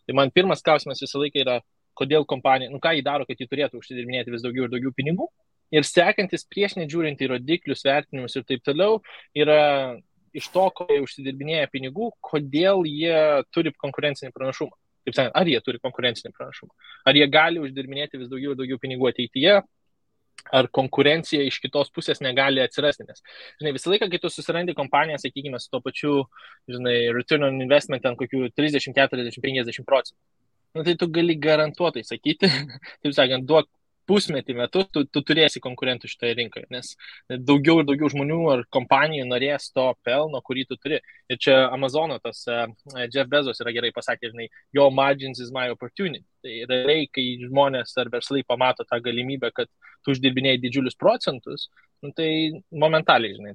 Tai man pirmas klausimas visą laiką yra, kodėl kompanija, ką jį daro, kad jį turėtų užsidirbinėti vis daugiau ir daugiau pinigų. Ir sekantis prieš nežiūrint į rodiklius, vertinimus ir taip toliau, yra iš to, ko jie užsidirbinėja pinigų, kodėl jie turi konkurencinį pranašumą. Taip sakant, ar jie turi konkurencinį pranašumą? Ar jie gali uždirbinėti vis daugiau ir daugiau pinigų ateityje? Ar konkurencija iš kitos pusės negali atsirasti? Nes, žinai, visą laiką, kai tu susirandi kompaniją, sakykime, su to pačiu, žinai, return on investment ant kokių 30, 40, 50%. Tai tu gali garantuotai sakyti, taip sakant, duok pusmetį metus, tu turėsi konkurentų šitoje rinkoje, nes daugiau ir daugiau žmonių ar kompanijų norės to pelno, kurį tu turi. Ir čia Amazono tas Jeff Bezos yra gerai pasakė, žinai, your margins is my opportunity. Tai realiai, kai žmonės ar verslai pamato tą galimybę, kad tu uždirbinėjai didžiulius procentus, tai momentaliai, žinai,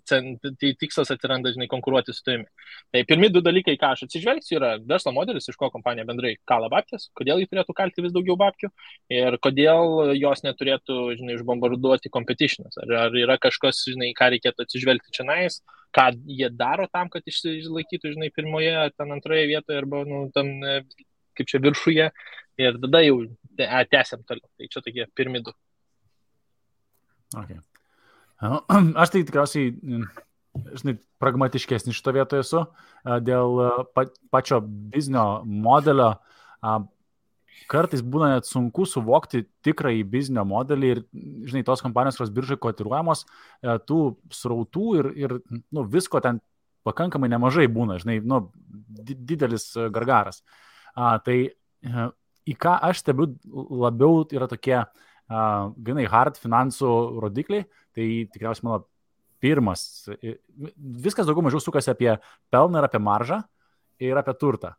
tikslas atsiranda, žinai, konkuruoti su tavimi. Tai pirmi du dalykai, ką aš atsižvelgsiu, yra verslo modelis, iš ko kompanija bendrai kala babkės, kodėl jį turėtų kalti vis daugiau babkių ir kodėl jos neturėtų, žinai, išbombarduoti competitionas. Ar yra kažkas, žinai, ką reikėtų atsižvelgti čionais, ką jie daro tam, kad išlaikytų, žinai, pirmoje, ten antroje vietoje arba, nu, tam, kaip čia viršuje ir tada jau tęsiam toliau. Tai čia tokie pirmi du. Okay. Aš tai tikriausiai, žinai, pragmatiškesnis šito vietoje esu dėl pačio biznio modelio. Kartais būna net sunku suvokti tikrąjį biznio modelį ir, žinai, tos kompanijos, kurios biržai kotiruojamos, tų srautų ir nu, visko ten pakankamai nemažai būna, žinai, nu, didelis gargaras. Tai į ką aš stebiu labiau yra tokie ganai hard finansų rodikliai, tai tikriausiai mano pirmas, viskas daugiau mažiau sukasi apie pelną ir apie maržą ir apie turtą.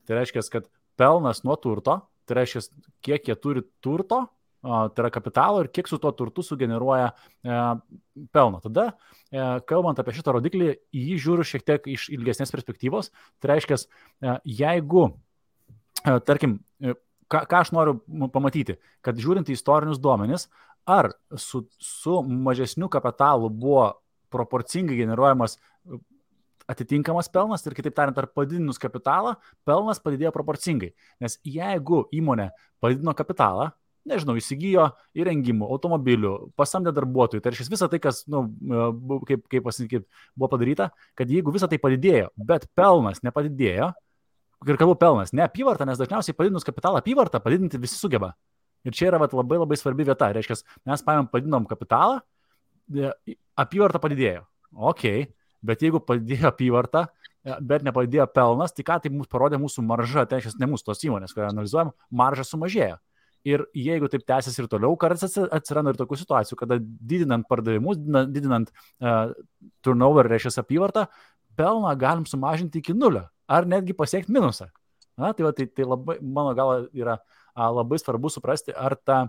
Tai reiškia, kad pelnas nuo turto, tai reiškia, kiek jie turi turto, tai yra kapitalo ir kiek su tuo turtu sugeneruoja pelno. Tada, kalbant apie šitą rodiklį, jį žiūriu šiek tiek iš ilgesnės perspektyvos, tai reiškia, jeigu, tarkim, ką aš noriu pamatyti, kad žiūrint į istorinius duomenis, ar su mažesniu kapitalu buvo proporcingai generuojamas atitinkamas pelnas ir kitaip tariant, ar padidinus kapitalą, pelnas padidėjo proporcingai. Nes jeigu įmonė padidino kapitalą, nežinau, įsigijo įrengimų, automobilių, pasamdė darbuotojų, tai reiškia visą tai, kas, nu, kaip pasakyti, buvo padaryta, kad jeigu visą tai padidėjo, bet pelnas nepadidėjo, ir kalbu pelnas, ne apyvarta, nes dažniausiai padidinus kapitalą apyvartą padidinti visi sugeba. Ir čia yra labai labai svarbi vieta. Reiškia, mes padidinom kapitalą, apyvarta padidėjo. Ok, bet jeigu padidėjo apyvarta, bet nepadidėjo pelnas, tai ką tai mums parodė mūsų marža, tai reiškia, ne mūsų tos įmonės, kurią analizuojam, marža sumažėjo. Ir jeigu taip tęsis ir toliau, kartais atsiranda ir tokių situacijų, kada didinant pardavimus, didinant turnover, reiškia apyvartą, pelną galim sumažinti iki nulio. Ar netgi pasiekti minusą. Tai labai, mano galva, yra labai svarbu suprasti, ar ta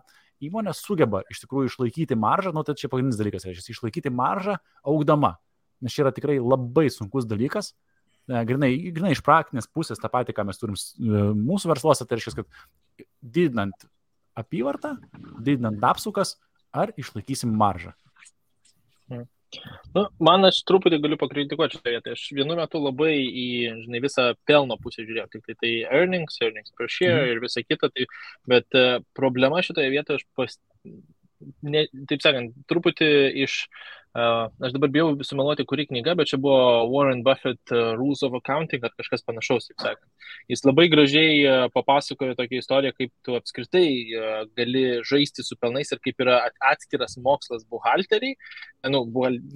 įmonė sugeba iš tikrųjų išlaikyti maržą, tai čia pagrindinis dalykas, reiškia, išlaikyti maržą augdama. Nes čia yra tikrai labai sunkus dalykas, grinai iš praktinės pusės tą patį, ką mes turim mūsų versluose, tai reiškia, kad didinant apyvartą, didinant apsukas, ar išlaikysim maržą. Nu, man aš truputį galiu pakritikuoti šitą vietą. Aš vienu metu labai į, žinai, visą pelno pusę žiūrėjau. Tik tai earnings per share ir visa kita. Tai, bet problema šitoje vietoje, taip sakant, truputį iš... aš dabar bijau sumeluoti, kuri knyga, bet čia buvo Warren Buffett Rules of Accounting, ar kažkas panašaus, taip sakant. Jis labai gražiai papasakojo tokią istoriją, kaip tu apskritai gali žaisti su pelnais ir kaip yra atskiras mokslas buhalteriai,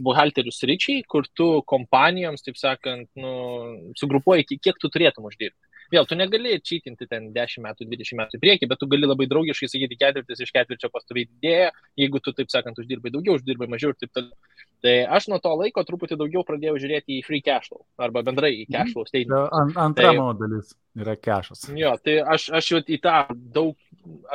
buhalterių sričiai, kur tu kompanijoms, taip sakant, sugrupuoji, kiek tu turėtum uždirbti. Vėl, tu negali čytinti ten 10 metų, 20 metų į priekį, bet tu gali labai draugiškai sakyti, ketvirtis iš ketvirčio pastoviai didėja, jeigu tu, taip sakant, uždirbai daugiau, uždirbai mažiau ir taip toliau. Tai aš nuo to laiko truputį daugiau pradėjau žiūrėti į free cash flow, arba bendrai į cash flow statement. Antra mano dalis yra cashas. Jo, tai aš jau į tą daug,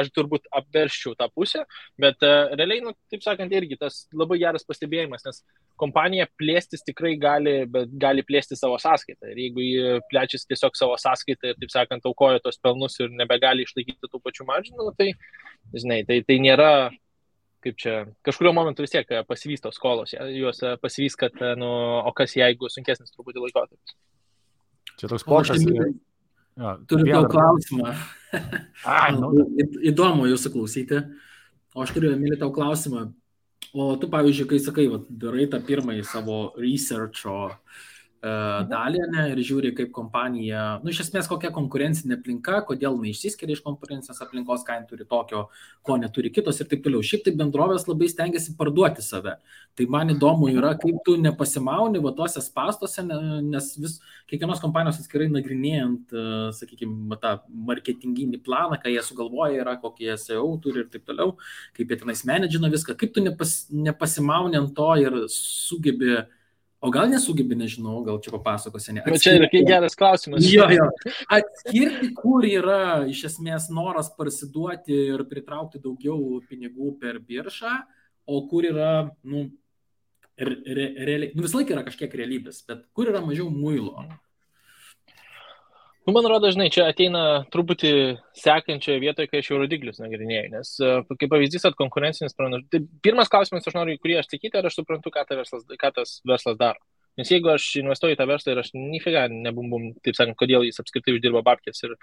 aš turbūt apverščiau tą pusę, bet realiai, taip sakant, irgi tas labai geras pastebėjimas, nes kompanija plėstis tikrai gali, bet gali plėsti savo sąskaitą. Ir jeigu jį plečiasi tiesiog savo sąskaitą ir, taip sakant, aukoja tos pelnus ir nebegali išlaikyti tų pačių maržinų, tai, žinai, tai nėra, kaip čia, kažkurio momentu vis tiek pasivys tos skolos, juos pasivys, kad, o kas jeigu sunkesnis truputį laikotarpis. Čia toks pošas. Turiu daug klausimą. Įdomu jūsų klausyti. O aš turiu, Emilį, tau klausimą. O tu, pavyzdžiui, kai sakai, darai tą pirmąjį savo researcho dalį, ir žiūri, kaip kompanija, iš esmės kokia konkurencinė aplinka, kodėl neišsiskiria iš konkurencinės aplinkos, ką turi tokio, ko neturi kitos ir taip toliau. Šiaip tai bendrovės labai stengiasi parduoti save. Tai man įdomu yra, kaip tu nepasimauni tuose spąstuose, nes kiekvienos kompanijos atskirai nagrinėjant, sakykime, tą marketinginį planą, ką jie sugalvoja yra, kokie SEO turi ir taip toliau, kaip jie tenais menedžina viską, kaip tu nepasimauni ant to ir sugebi. O gal nesugebi, nežinau, gal čia papasakosi. Čia yra geras klausimas. Jo. Atskirti, kur yra iš esmės noras parsiduoti ir pritraukti daugiau pinigų per biržą, o kur yra, realiai, visą laiką yra kažkiek realybės, bet kur yra mažiau muilo? Man rodo, žinai, čia ateina truputį sekančioje vietoje, kai aš jau rodiklius nagrinėjau, nes kaip pavyzdys, kad konkurencinis pranašumas. Tai pirmas klausimas, aš noriu, kurį aš sakyti, ar aš suprantu, ką tas verslas daro. Nes jeigu aš investuoju į tą verslą ir aš nifiga nebumbum, taip sakant, kodėl jis apskritai uždirba babkės ir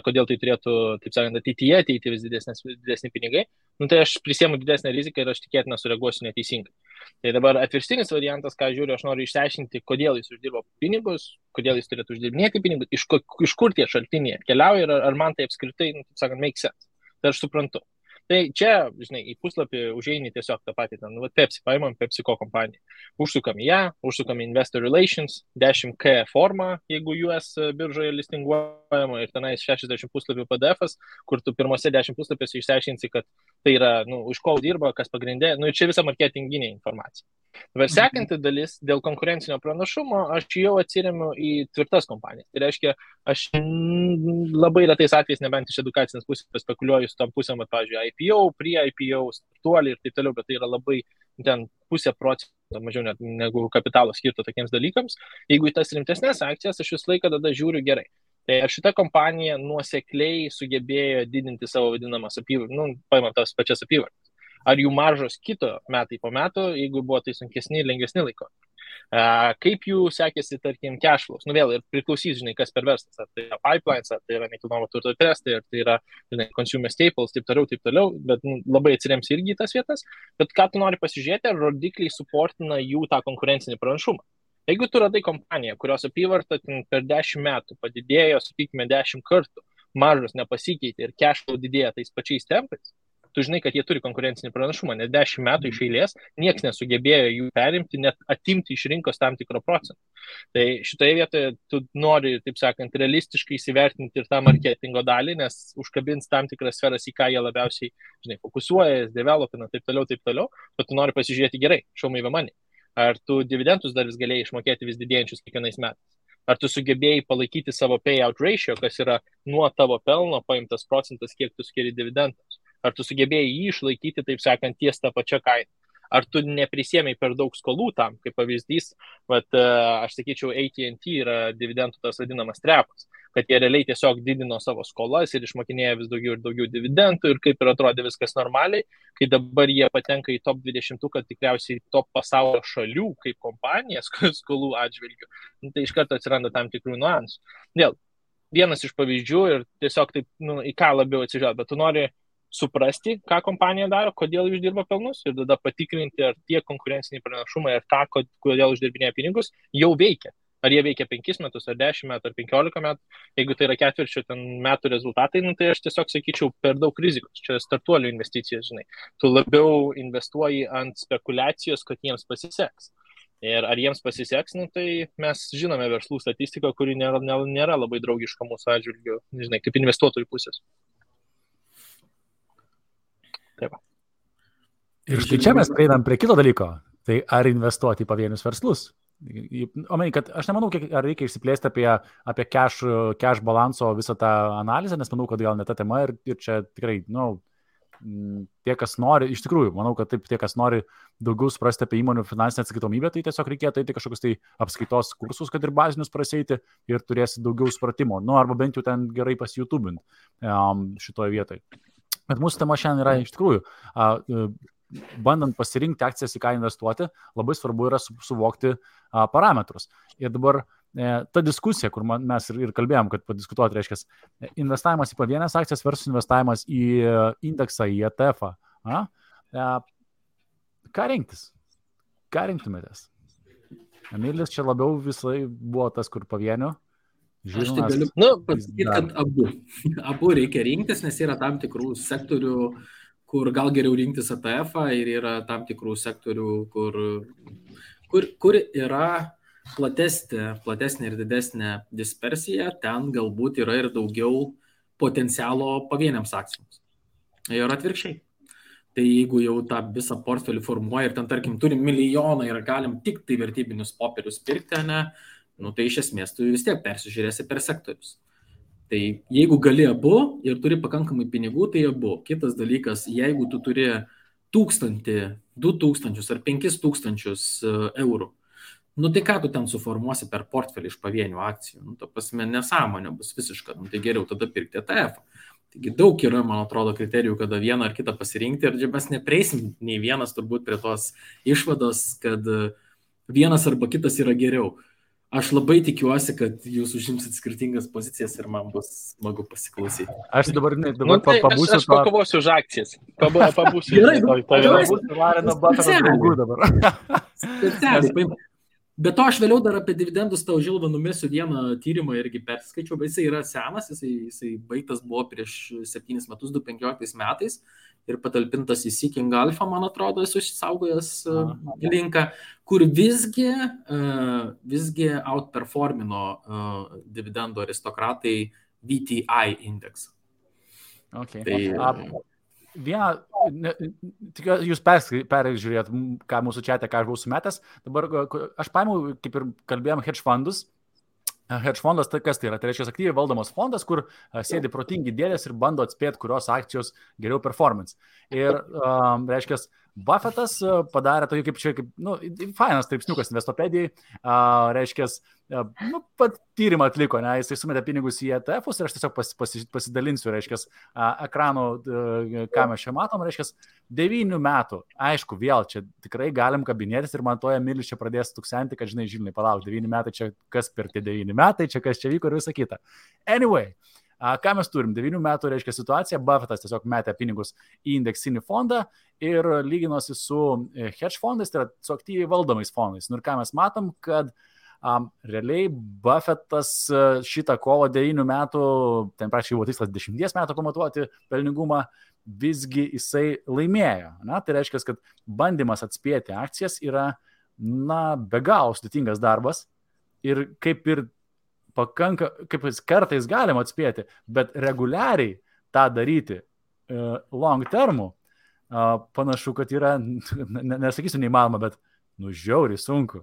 kodėl tai turėtų, taip sakant, ateityje ateiti vis didesni pinigai, tai aš prisiemu didesnę riziką ir aš tikėtina sureaguosiu neteisingai. Tai dabar atvirstinis variantas, ką žiūriu, aš noriu išsiaiškinti, kodėl jis uždirba pinigus, kodėl jis turėtų uždirbinėti pinigus, iš kur tie šaltiniai atkeliauja ir ar man tai apskritai, taip sakant, make sense. Tai aš suprantu. Tai čia, žinai, į puslapį užeini tiesiog tą patį, Pepsi, paimam PepsiCo kompaniją. Užsukam į ją, užsukam į Investor Relations, 10K formą, jeigu US biržoje listinguojama ir tenais 60 puslapių PDF-as, kur tu pirmose 10 puslapiuose išsiaiškinsi, kad tai yra, už ko dirba, kas pagrindė, ir čia visa marketinginė informacija. Dabar sekanti dalis, dėl konkurencinio pranašumo, aš jau atsiremiu į tvirtas kompanijas. Tai reiškia, aš labai retais atvejais, nebent iš edukacinės pusės spekuliuoju su tom pusėm, pavyzdžiui, IPO, pre-IPO, startuoliai ir taip toliau, bet tai yra labai ten 0,5% mažiau net negu kapitalo skirto tokiems dalykams. Jeigu į tas rimtesnės akcijas, aš visą laiką tada žiūriu gerai. Tai ar šita kompanija nuosekliai sugebėjo didinti savo vadinamas apyvartas, paimant tas pačias apyvartas. Ar jų maržos kito metai po metų, jeigu buvo tai sunkesni ir lengvesni laiko. Kaip jų sekėsi, tarkim, cash flows. Vėl ir priklausys, žinai, kas per verslas. Ar tai yra pipelines, ar tai yra nekilnojamo turto testai, ar tai yra, žinai, consumer staples, taip toliau, bet labai atsirems irgi į tas vietas. Bet ką tu nori pasižiūrėti, ar rodikliai suportina jų tą konkurencinį pranašumą. Jeigu tu radai kompaniją, kurios apyvarta per 10 metų padidėjo, sakykime, 10 kartų, maržos nepasikeitė ir cash flow didėja tais pačiais tempais, tu žinai, kad jie turi konkurencinį pranašumą, nes 10 metų iš eilės nieks nesugebėjo jų perimti, net atimti iš rinkos tam tikrą procentą. Tai šitoje vietoje tu nori, taip sakant, realistiškai įsivertinti ir tą marketingo dalį, nes užkabins tam tikras sferas, į ką jie labiausiai, žinai, fokusuoja, developina, taip toliau, bet tu nori pasižiūrėti gerai, show me the money. Ar tu dividendus dar vis galėjai išmokėti vis didėjančius kiekvienais metais? Ar tu sugebėjai palaikyti savo payout ratio, kas yra nuo tavo pelno paimtas procentas, kiek tu skiri dividendams? Ar tu sugebėjai jį išlaikyti, taip sakant, ties tą pačią kainą? Ar tu neprisėmei per daug skolų tam, kaip pavyzdys, bet aš sakyčiau, AT&T yra dividendų tas vadinamas trepas, kad jie realiai tiesiog didino savo skolas ir išmokinėjo vis daugiau ir daugiau dividendų ir kaip ir atrodė viskas normaliai, kai dabar jie patenka į top 20, kad tikriausiai top pasaulio šalių kaip kompanijas skolų atžvilgių, tai iš karto atsiranda tam tikrų niuansų. Vėl, vienas iš pavyzdžių ir tiesiog taip, į ką labiau atsižvelgti, bet tu nori suprasti, ką kompanija daro, kodėl uždirba pelnus ir tada patikrinti, ar tie konkurenciniai pranašumai ir tą, kodėl uždirbinėja pinigus, jau veikia. Ar jie veikia 5 metus, ar 10 metų, ar 15 metų. Jeigu tai yra ketvirčio metų rezultatai, tai aš tiesiog sakyčiau per daug rizikos. Čia startuolių investicijos, žinai. Tu labiau investuoji ant spekulacijos, kad jiems pasiseks. Ir ar jiems pasiseks, tai mes žinome verslų statistiką, kuri nėra labai draugiška mūsų atžvilgiu, žinai, kaip investuotojų pusės. Taip. Ir štai čia mes prieinam prie kito dalyko. Tai ar investuoti į pavienius verslus? Kad aš nemanau, ar reikia išsiplėsti apie cash balanso visą tą analizę, nes manau, kad gal ne ta tema ir čia tikrai, tie, kas nori, iš tikrųjų, manau, kad taip, tie, kas nori daugiau suprasti apie įmonių finansinę atskaitomybę, tai tiesiog reikėtų eiti kažkokius tai apskaitos kursus, kad ir bazinius praseiti ir turėsi daugiau supratimo, arba bent jau ten gerai pasijutubint šitoje vietoje. Bet mūsų tema šiandien yra iš tikrųjų, bandant pasirinkti akcijas, į ką investuoti, labai svarbu yra suvokti parametrus. Ir dabar ta diskusija, kur mes ir kalbėjom, kad padiskutuoti, reiškia, investavimas į pavienės akcijas versus investavimas į indeksą, į ETF-ą. Ką rinktis? Ką rinktumėtės? Emilis čia labiau visai buvo tas, kur pavienių. Aš tai galiu pasakyti, kad abu reikia rinktis, nes yra tam tikrų sektorių, kur gal geriau rinktis ETF-ą ir yra tam tikrų sektorių, kur yra platesnė ir didesnė dispersija, ten galbūt yra ir daugiau potencialo pavieniams akcijoms. Ir atvirkščiai. Tai jeigu jau tą visą portfelį formuoja ir ten, tarkim, turim milijoną ir galim tik tai vertybinius popierius pirkti, tai iš esmės tu vis tiek persižiūrėsi per sektorius. Tai jeigu gali abu ir turi pakankamai pinigų, tai abu. Kitas dalykas, jeigu tu turi 1000, 2000 ar 5000 eurų. Nu tai ką tu ten suformuosi per portfelį iš pavienių akcijų? Nu, ta prasme, nesąmonė bus visiška. Nu, tai geriau tada pirkti ETF. Taigi daug yra, man atrodo, kriterijų, kada vieną ar kitą pasirinkti ir mes nepreisim nei vienas turbūt prie tos išvados, kad vienas arba kitas yra geriau. Aš labai tikiuosi, kad jūs užimsit skirtingas pozicijas ir man bus smagu pasiklausyti. Aš dabar pabūsiu. Aš pakovosiu už akcijas. Pabūsiu. Gerai, Vareno Buffetto draugų dabar. Specialiai. Bet to aš vėliau dar apie dividendus tau Žilvą numesiu vieną tyrimą irgi perskaičiau, bet jisai yra senas, jisai baigtas buvo prieš 7 metus, 2015 metais ir patalpintas į Seeking Alpha, man atrodo, esu išsaugojęs linką, kur visgi outperformino dividendų aristokratai VTI indeksą. Okay. Jūs peržiūrėjot, ką mūsų čiate, ką aš buvau sumetęs. Dabar aš paėmiau, kaip ir kalbėjom, hedge fondus. Hedge fondas tai kas tai yra? Tai reiškia aktyviai valdomas fondas, kur sėdi protingi dėdės ir bando atspėti, kurios akcijos geriau performance. Ir reiškia, Buffettas padarė tokį fainas straipsniukas Investopedijai, reiškia, pat tyrimą atliko, ne, jisai sumetė pinigus į ETF-us ir aš tiesiog pasidalinsiu, reiškia, ekranų, ką mes čia matom, reiškia, 9 metų, aišku, vėl čia tikrai galim kabinėtis ir man toje Milis čia pradės tuksenti, kad žinai, palauk, 9 metai, čia kas per tie 9 metai, čia kas čia vyko ir visą kitą. Anyway, ką mes turim? 9 metų reiškia situacija, Buffettas tiesiog metė pinigus į indeksinį fondą ir lyginosi su hedge fondais, tai yra su aktyviai valdomais fondais. Ir ką mes matom, kad realiai Buffettas šitą kovo 9 metų, ten praktiškai buvo tikslas 10 metų pamatuoti pelningumą, visgi jisai laimėjo. Tai reiškia, kad bandymas atspėti akcijas yra, be galo sudėtingas darbas ir kaip kartais galima atspėti, bet reguliariai tą daryti long termų, panašu, kad yra, nesakysiu neįmanoma, bet žiauriai sunku.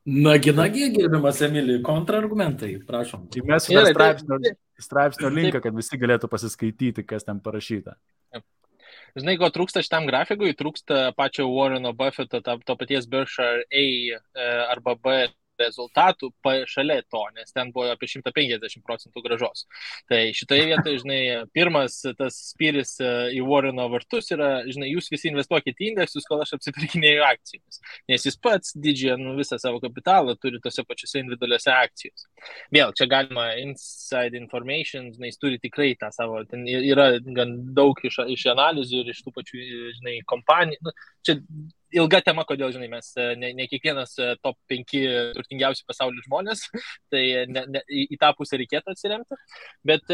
Nagi, gerbiamas Emilį, kontrargumentai, prašom. Mes straipsnio linką, kad visi galėtų pasiskaityti, kas ten parašyta. Žinai, ko trūksta šitam grafikui? Trūksta pačio Warreno Buffetto, to paties Berkshire A arba B rezultatų šalia to, nes ten buvo apie 150% gražos. Tai šitoje vietoje, žinai, pirmas tas spyris į Warreno vartus yra, žinai, jūs visi investuokite į indeksus, kol aš apsipirkinėju akcijomis. Nes jis pats didžiąją visą savo kapitalą turi tose pačiose individualiuose akcijose. Vėl, čia galima inside information, žinai, jis turi tikrai tą savo, ten yra gan daug iš analizių ir iš tų pačių, žinai, kompanijų. Čia ilga tema, kodėl, žinai, mes ne kiekvienas top 5 turtingiausių pasaulio žmonės, tai į tą pusę reikėtų atsiremti. Bet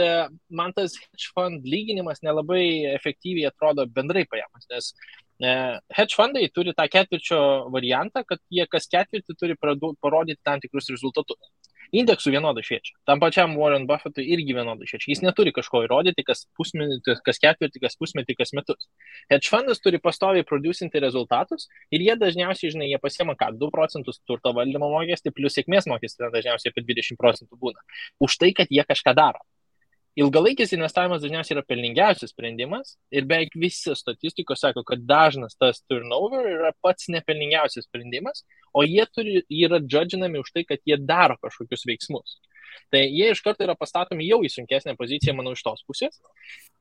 man tas hedge fund lyginimas nelabai efektyviai atrodo bendrai paėmus, nes hedge fundai turi tą ketvirčio variantą, kad jie kas ketvirtį turi parodyti tam tikrus rezultatus. Indeksų vienodai šviečia. Tam pačiam Warren Buffettui irgi vienodai šviečia. Jis neturi kažko įrodyti, kas pusmetį, kas ketvirtį, kas pusmetį, kas metus. Hedge fundas turi pastoviai producinti rezultatus ir jie dažniausiai, žinai, jie pasiema 2% turto valdymo mokestį, plus sėkmės mokestį dažniausiai apie 20% būna. Už tai, kad jie kažką daro. Ilgalaikis investavimas dažniausiai yra pelningiausias sprendimas ir beveik visi statistikos sako, kad dažnas tas turnover yra pats nepelningiausias sprendimas, o jie yra judginami už tai, kad jie daro kažkokius veiksmus. Tai jie iš karto yra pastatomi jau į sunkesnę poziciją, manau, iš tos pusės.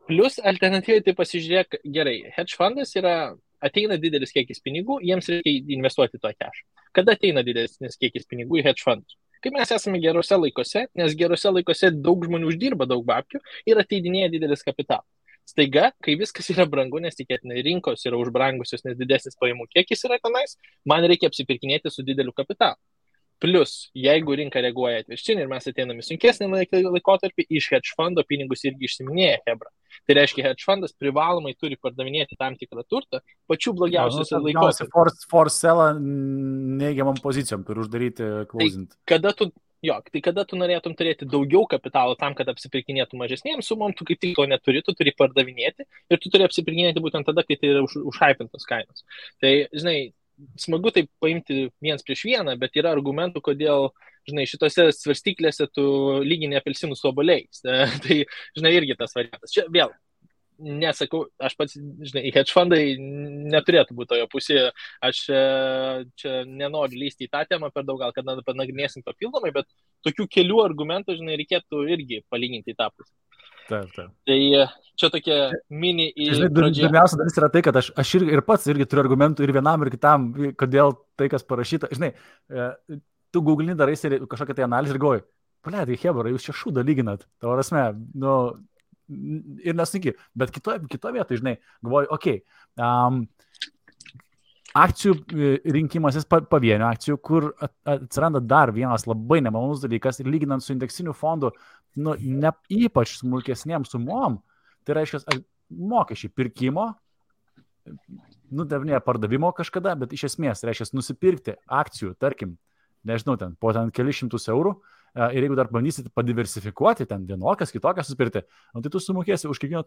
Plus alternatyviai tai pasižiūrėk, gerai, hedge fundas ateina didelis kiekis pinigų, jiems reikia investuoti to cash. Kada ateina didelis kiekis pinigų į hedge fundus? Kai mes esame gerose laikose, nes gerose laikose daug žmonių uždirba daug babkių ir ateidinėja didelis kapitalas. Staiga, kai viskas yra brangu, nes tikėtinai rinkos yra užbrangusios, nes didesnis pajamų kiekis yra tenais, man reikia apsipirkinėti su dideliu kapitalu. Plus, jeigu rinka reaguoja atvirkščiai ir mes ateiname sunkesnį laikotarpį, iš hedge fundo pinigus irgi išsiminėja hebra. Tai reiškia, hedge fundas privalomai turi pardavinėti tam tikrą turtą pačių blogiausiuose laikotarpiuose. Force sellą neigiamam pozicijom turi uždaryti closing. Tai kada tu norėtum turėti daugiau kapitalo tam, kad apsipirkinėtų mažesnėms sumom, tu kaip tik to neturi, tu turi pardavinėti ir tu turi apsipirkinėti būtent tada, kai tai yra užhypintos kainos. Tai, žinai, smagu taip paimti viens prieš vieną, bet yra argumentų, kodėl, žinai, šitose svarstyklėse tu lygini apelsinų su obuoliais. Tai, žinai, irgi tas variantas. Čia vėl, nesakau, aš pats, žinai, hedge fundai neturėtų būti tojo pusėje, aš čia nenoriu lysti į tą temą per daug, gal kad panagrinėsim papildomai, bet tokių kelių argumentų, žinai, reikėtų irgi palyginti į tą pusę. Taip. Tai čia tokia mini į pradžią. Pirmiausia dalis yra tai, kad aš ir pats irgi turiu argumentų ir vienam, ir kitam, kodėl tai, kas parašyta. Žinai, tu googlini, darai kažkokią tai analizę ir galvoji, paleidai, hebra, jūs čia šūdą lyginat. Tavo prasme, ir nesunki, bet kito vietoje, žinai, galvoju, akcijų rinkimasis pavienių akcijų, kur atsiranda dar vienas labai nemalonus dalykas ir lyginant su indeksiniu fondu, ne ypač smulkesnėm sumom, tai reiškia mokesčiai pirkimo, ne pardavimo kažkada, bet iš esmės reiškia nusipirkti akcijų, tarkim, nežinau, po kelius šimtus eurų, ir jeigu dar bandysit padiversifikuoti, ten vienokias, kitokias susipirkti, tai tu sumokėsi už kiekvieną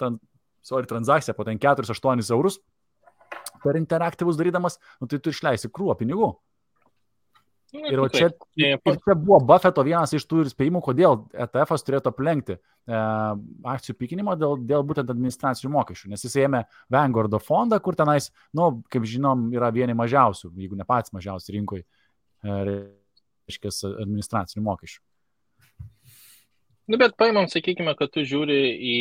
transakciją po 4-8 eurus per interaktyvus darydamas, tai tu išleisi krūvą pinigų. Ir čia buvo Buffetto vienas iš tų spėjimų, kodėl ETF-as turėtų aplenkti akcijų pikinimo dėl būtent administracinių mokesčių, nes jis ėmė Vanguardo fondą, kur tenais, kaip žinom, yra vieni mažiausių, jeigu ne pats mažiausių rinkoj, reiškia administracinių mokesčių. Bet paimam, sakykime, kad tu žiūri į,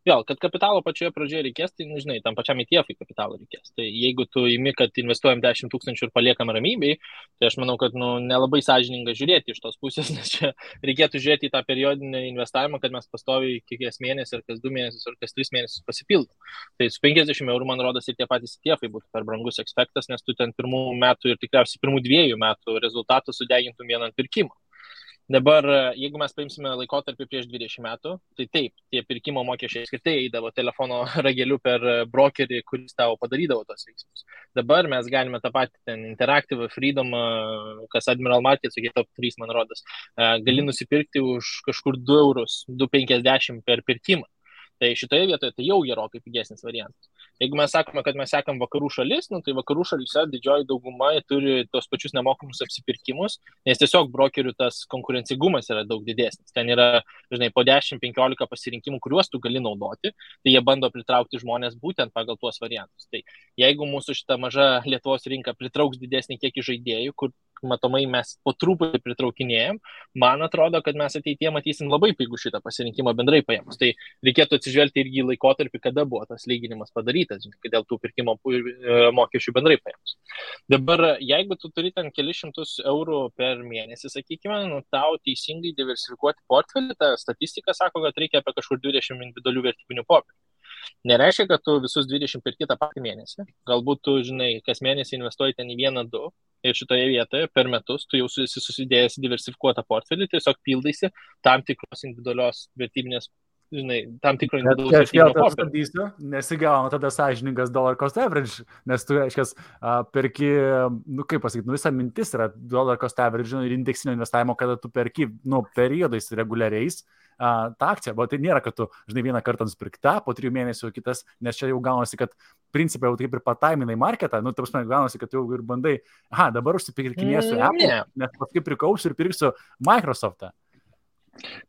vėl, kad kapitalo pačioje pradžioje reikės, tai, žinai, tam pačiam ETF-ui kapitalo reikės. Tai jeigu tu įmi, kad investuojam 10 000 ir paliekam ramybei, tai aš manau, kad nelabai sąžininga žiūrėti iš tos pusės, nes čia reikėtų žiūrėti į tą periodinį investavimą, kad mes pastoviai kiekvienas mėnesį, ar kas 2 mėnesius, ar kas 3 mėnesius pasipildom. Tai su 50 eurų, man rodos, ir tie patys ETF-ai būtų per brangus ekspektas, nes tu ten pirmų metų ir tikriausiai pirmų 2 metų rezultatų sudegintum vieną pirkimą. Dabar, jeigu mes paimsime laikotarpį prieš 20 metų, tai taip, tie pirkimo mokesčiai skirtai eidavo telefono rageliu per brokerį, kuris tavo padarydavo tos veiksmus. Dabar mes galime tą patį ten Interactive, Freedom, kas Admiral Markets, tokie top 3, man rodos, gali nusipirkti už kažkur 2 eurus, 2,50 per pirkimą. Tai šitoje vietoje tai jau gerokai pigesnis variantas. Jeigu mes sakome, kad mes sekam vakarų šalis, tai vakarų šalyse didžioji dauguma turi tos pačius nemokamus apsipirkimus, nes tiesiog brokerių tas konkurencingumas yra daug didesnis. Ten yra, žinai, po 10-15 pasirinkimų, kuriuos tu gali naudoti, tai jie bando pritraukti žmonės būtent pagal tuos variantus. Tai jeigu mūsų šita maža Lietuvos rinka pritrauks didesnį kiekį žaidėjų, kur matomai mes po truputį pritraukinėjom, man atrodo, kad mes ateityje matysim labai pigų šitą pasirinkimą bendrai paėmus. Tai reikėtų atsižvelgti irgi į laikotarpį, kada buvo tas lyginimas padarytas, dėl tų pirkimo mokesčių bendrai paėmus. Dabar, jeigu tu turi ten kelius šimtus eurų per mėnesį, sakykime, tau teisingai diversifikuoti portfelį, ta statistika sako, kad reikia apie kažkur 20 individualių vertybinių popierių. Nereiškia, kad tu visus 20 perki tą patį mėnesį. Galbūt tu, žinai, kas mėnesį investuoji ten į 1-2 ir šitoje vietoje per metus tu jau susidėjęs diversifikuotą portfelį, tiesiog pildaisi tam tikros individualios vertybinės, žinai, tam tikro individualaus vertybinio portfelio. Nesigauna tada sąžiningas dollar cost average, nes tu, reiškias, perki, kaip pasakyti, visa mintis yra dollar cost average ir indeksinio investavimo, kada tu perki, periodais reguliariais tą akciją, bet tai nėra, kad tu, žinai, vieną kartą nusipirkta, po 3 mėnesių kitas, nes čia jau gaunasi, kad principai jau taip ir pataiminai marketą, ta prasme, gaunasi, kad jau ir bandai, dabar užsipirkinėsiu Apple, nes paskui prikausiu ir pirksiu Microsoftą.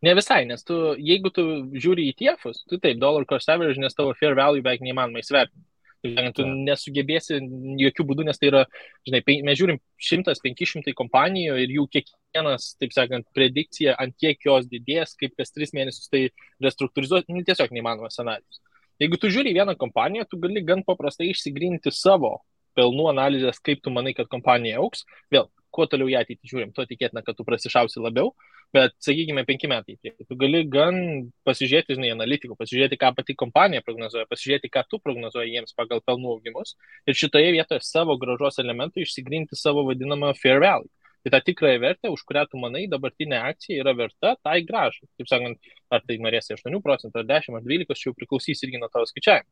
Ne visai, nes jeigu tu žiūri į ETF-us, tu taip, dollar cost average, nes tavo fair value beveik neįmanoma įsvertinti. Tu nesugebėsi jokių būdų, nes tai yra, žinai, mes žiūrim 100-500 kompanijų ir jų kiekvienas, taip sakant, predikcija, ant kiek jos didės, kaip kas 3 mėnesius tai restruktūrizuoti, tiesiog neįmanomas scenarijus. Jeigu tu žiūri vieną kompaniją, tu gali gan paprastai išsigrinti savo pelnų analizės, kaip tu manai, kad kompanija augs. Vėl, kuo toliau ją ateitį žiūrim, tuo tikėtina, kad tu prasišausi labiau, bet, sakykime, 5 metai. Tu gali gan pasižiūrėti, žinai, analitikų, pasižiūrėti, ką pati kompanija prognozuoja, pasižiūrėti, ką tu prognozuoji jiems pagal pelnų augimus ir šitoje vietoje savo grąžos elementų išsigrinti savo vadinamą fair value. Tai ta tikrąją vertę, už kurią tu manai, dabartinė akcija yra verta tai grąžai. Taip sakant, ar tai norėsi 8%, ar 10%, ar 12%, čia jau priklausys irgi nuo tavo skaičiavimo.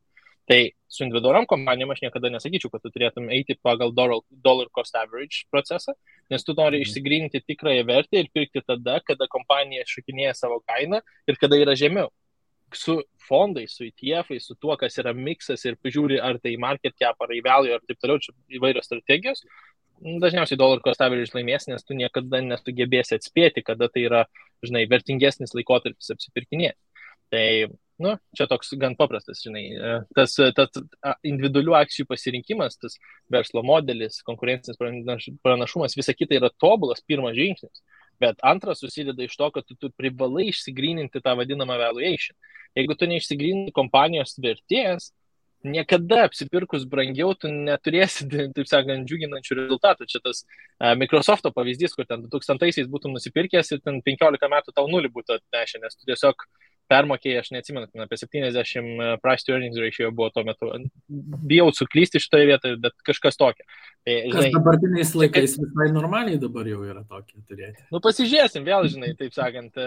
Tai su individualiom kompanijom aš niekada nesakyčiau, kad tu turėtum eiti pagal dollar cost average procesą, nes tu nori išsigryninti tikrąją vertę ir pirkti tada, kada kompanija šokinėja savo kainą ir kada yra žemiau. Su fondais, su ETF-ais, su tuo, kas yra miksas ir pažiūri, ar tai market cap, ar value, ar taip toliau, čia įvairios strategijos. Dažniausiai dollar cost average laimės, nes tu niekada nesugebėsi atspėti, kada tai yra, žinai, vertingesnis laikotarpis apsipirkinėti. Tai Nu, čia toks gan paprastas, žinai, tas individualių akcijų pasirinkimas, tas verslo modelis, konkurencinis pranašumas, visa kita yra tobulas pirmas žingsnis. Bet antras susideda iš to, kad tu privalai išsigryninti tą vadinamą valuation. Jeigu tu neišsigryninti kompanijos vertės, niekada apsipirkus brangiau tu neturėsi, taip sakant, džiuginančių rezultatų. Čia tas Microsofto pavyzdys, kur ten 2000-aisiais būtum nusipirkęs ir ten 15 metų tau nulį būtų atnešę, nes tu tiesiog permokėjai, aš neatsimenu, apie 70 price to earnings ratio buvo tuo metu. Bijau suklysti šitoje vietoje, bet kažkas tokio. Tai, žinai, dabartiniais laikais visai normaliai dabar jau yra tokie turėti. Nu, pasižiūrėsim vėl, žinai, taip sakant.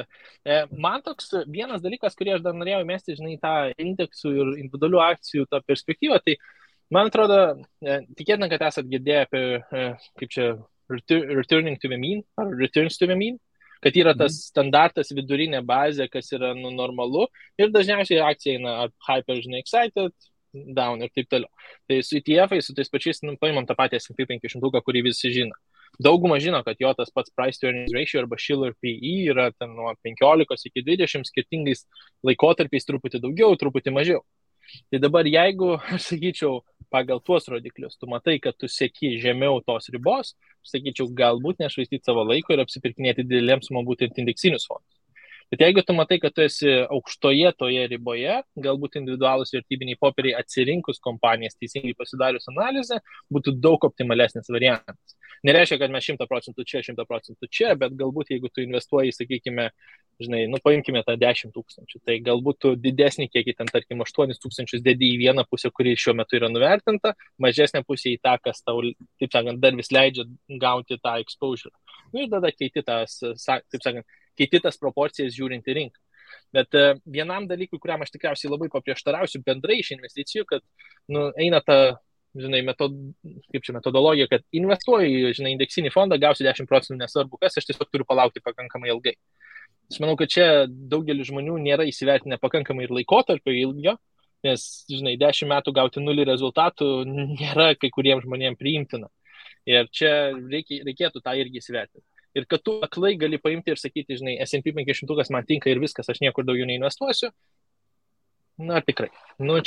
Man toks vienas dalykas, kurį aš dar norėjau mesti, žinai, tą indeksų ir individualių akcijų tą perspektyvą, tai man atrodo, tikėtina, kad esat girdėję apie, kaip čia, returning to the mean, ar returns to the mean, kad yra tas standartas vidurinė bazė, kas yra normalu, ir dažniausiai akcija eina hyper, žinai, excited, down ir taip toliau. Tai su ETF-ais, su tais pačiais, paimam tą patį S&P 500, kurį visi žino. Dauguma žino, kad jo tas pats price to earnings ratio arba Shiller PE yra ten nuo 15 iki 20 skirtingais laikotarpiais, truputį daugiau, truputį mažiau. Tai dabar jeigu, aš sakyčiau, pagal tuos rodiklius, tu matai, kad tu seki žemiau tos ribos, aš sakyčiau, galbūt nešvaistyti savo laiko ir apsipirkinėti didelėms sumom būtent indeksinius fondus. Bet jeigu tu matai, kad tu esi aukštoje toje riboje, galbūt individualūs vertybiniai popieriai atsirinkus kompanijas teisingai pasidarius analizę, būtų daug optimalesnis variantas. Nereiškia, kad mes 100% čia, 100% čia, bet galbūt jeigu tu investuoji, sakykime, žinai, paimkime tą 10 000, tai galbūt tu didesnį kiekį, ten tarkim 8 000 dedi į vieną pusę, kuri šiuo metu yra nuvertinta, mažesnė pusė į tą, kas tau, taip sakant, dar vis leidžia gauti tą exposure. Ir tada keiti tas, taip sakant, keiti tas proporcijas žiūrint į rinką. Bet vienam dalykui, kuriam aš tikriausiai labai paprieštarausiu bendrai iš investicijų, kad eina ta, žinai, metodologija, kad investuoju, žinai, indeksinį fondą, gausiu 10%, nesvarbu kas, aš tiesiog turiu palaukti pakankamai ilgai. Aš manau, kad čia daugelis žmonių nėra įsivertinę pakankamai ir laikotarpio ilgio, nes, žinai, 10 metų gauti 0 rezultatų nėra kai kuriems žmonėms priimtina. Ir čia reikėtų tą irgi įsivertinti. Ir kad tu aklai gali paimti ir sakyti, žinai, S&P 500 man tinka ir viskas, aš niekur daugiau neinvestuosiu. Na, tikrai.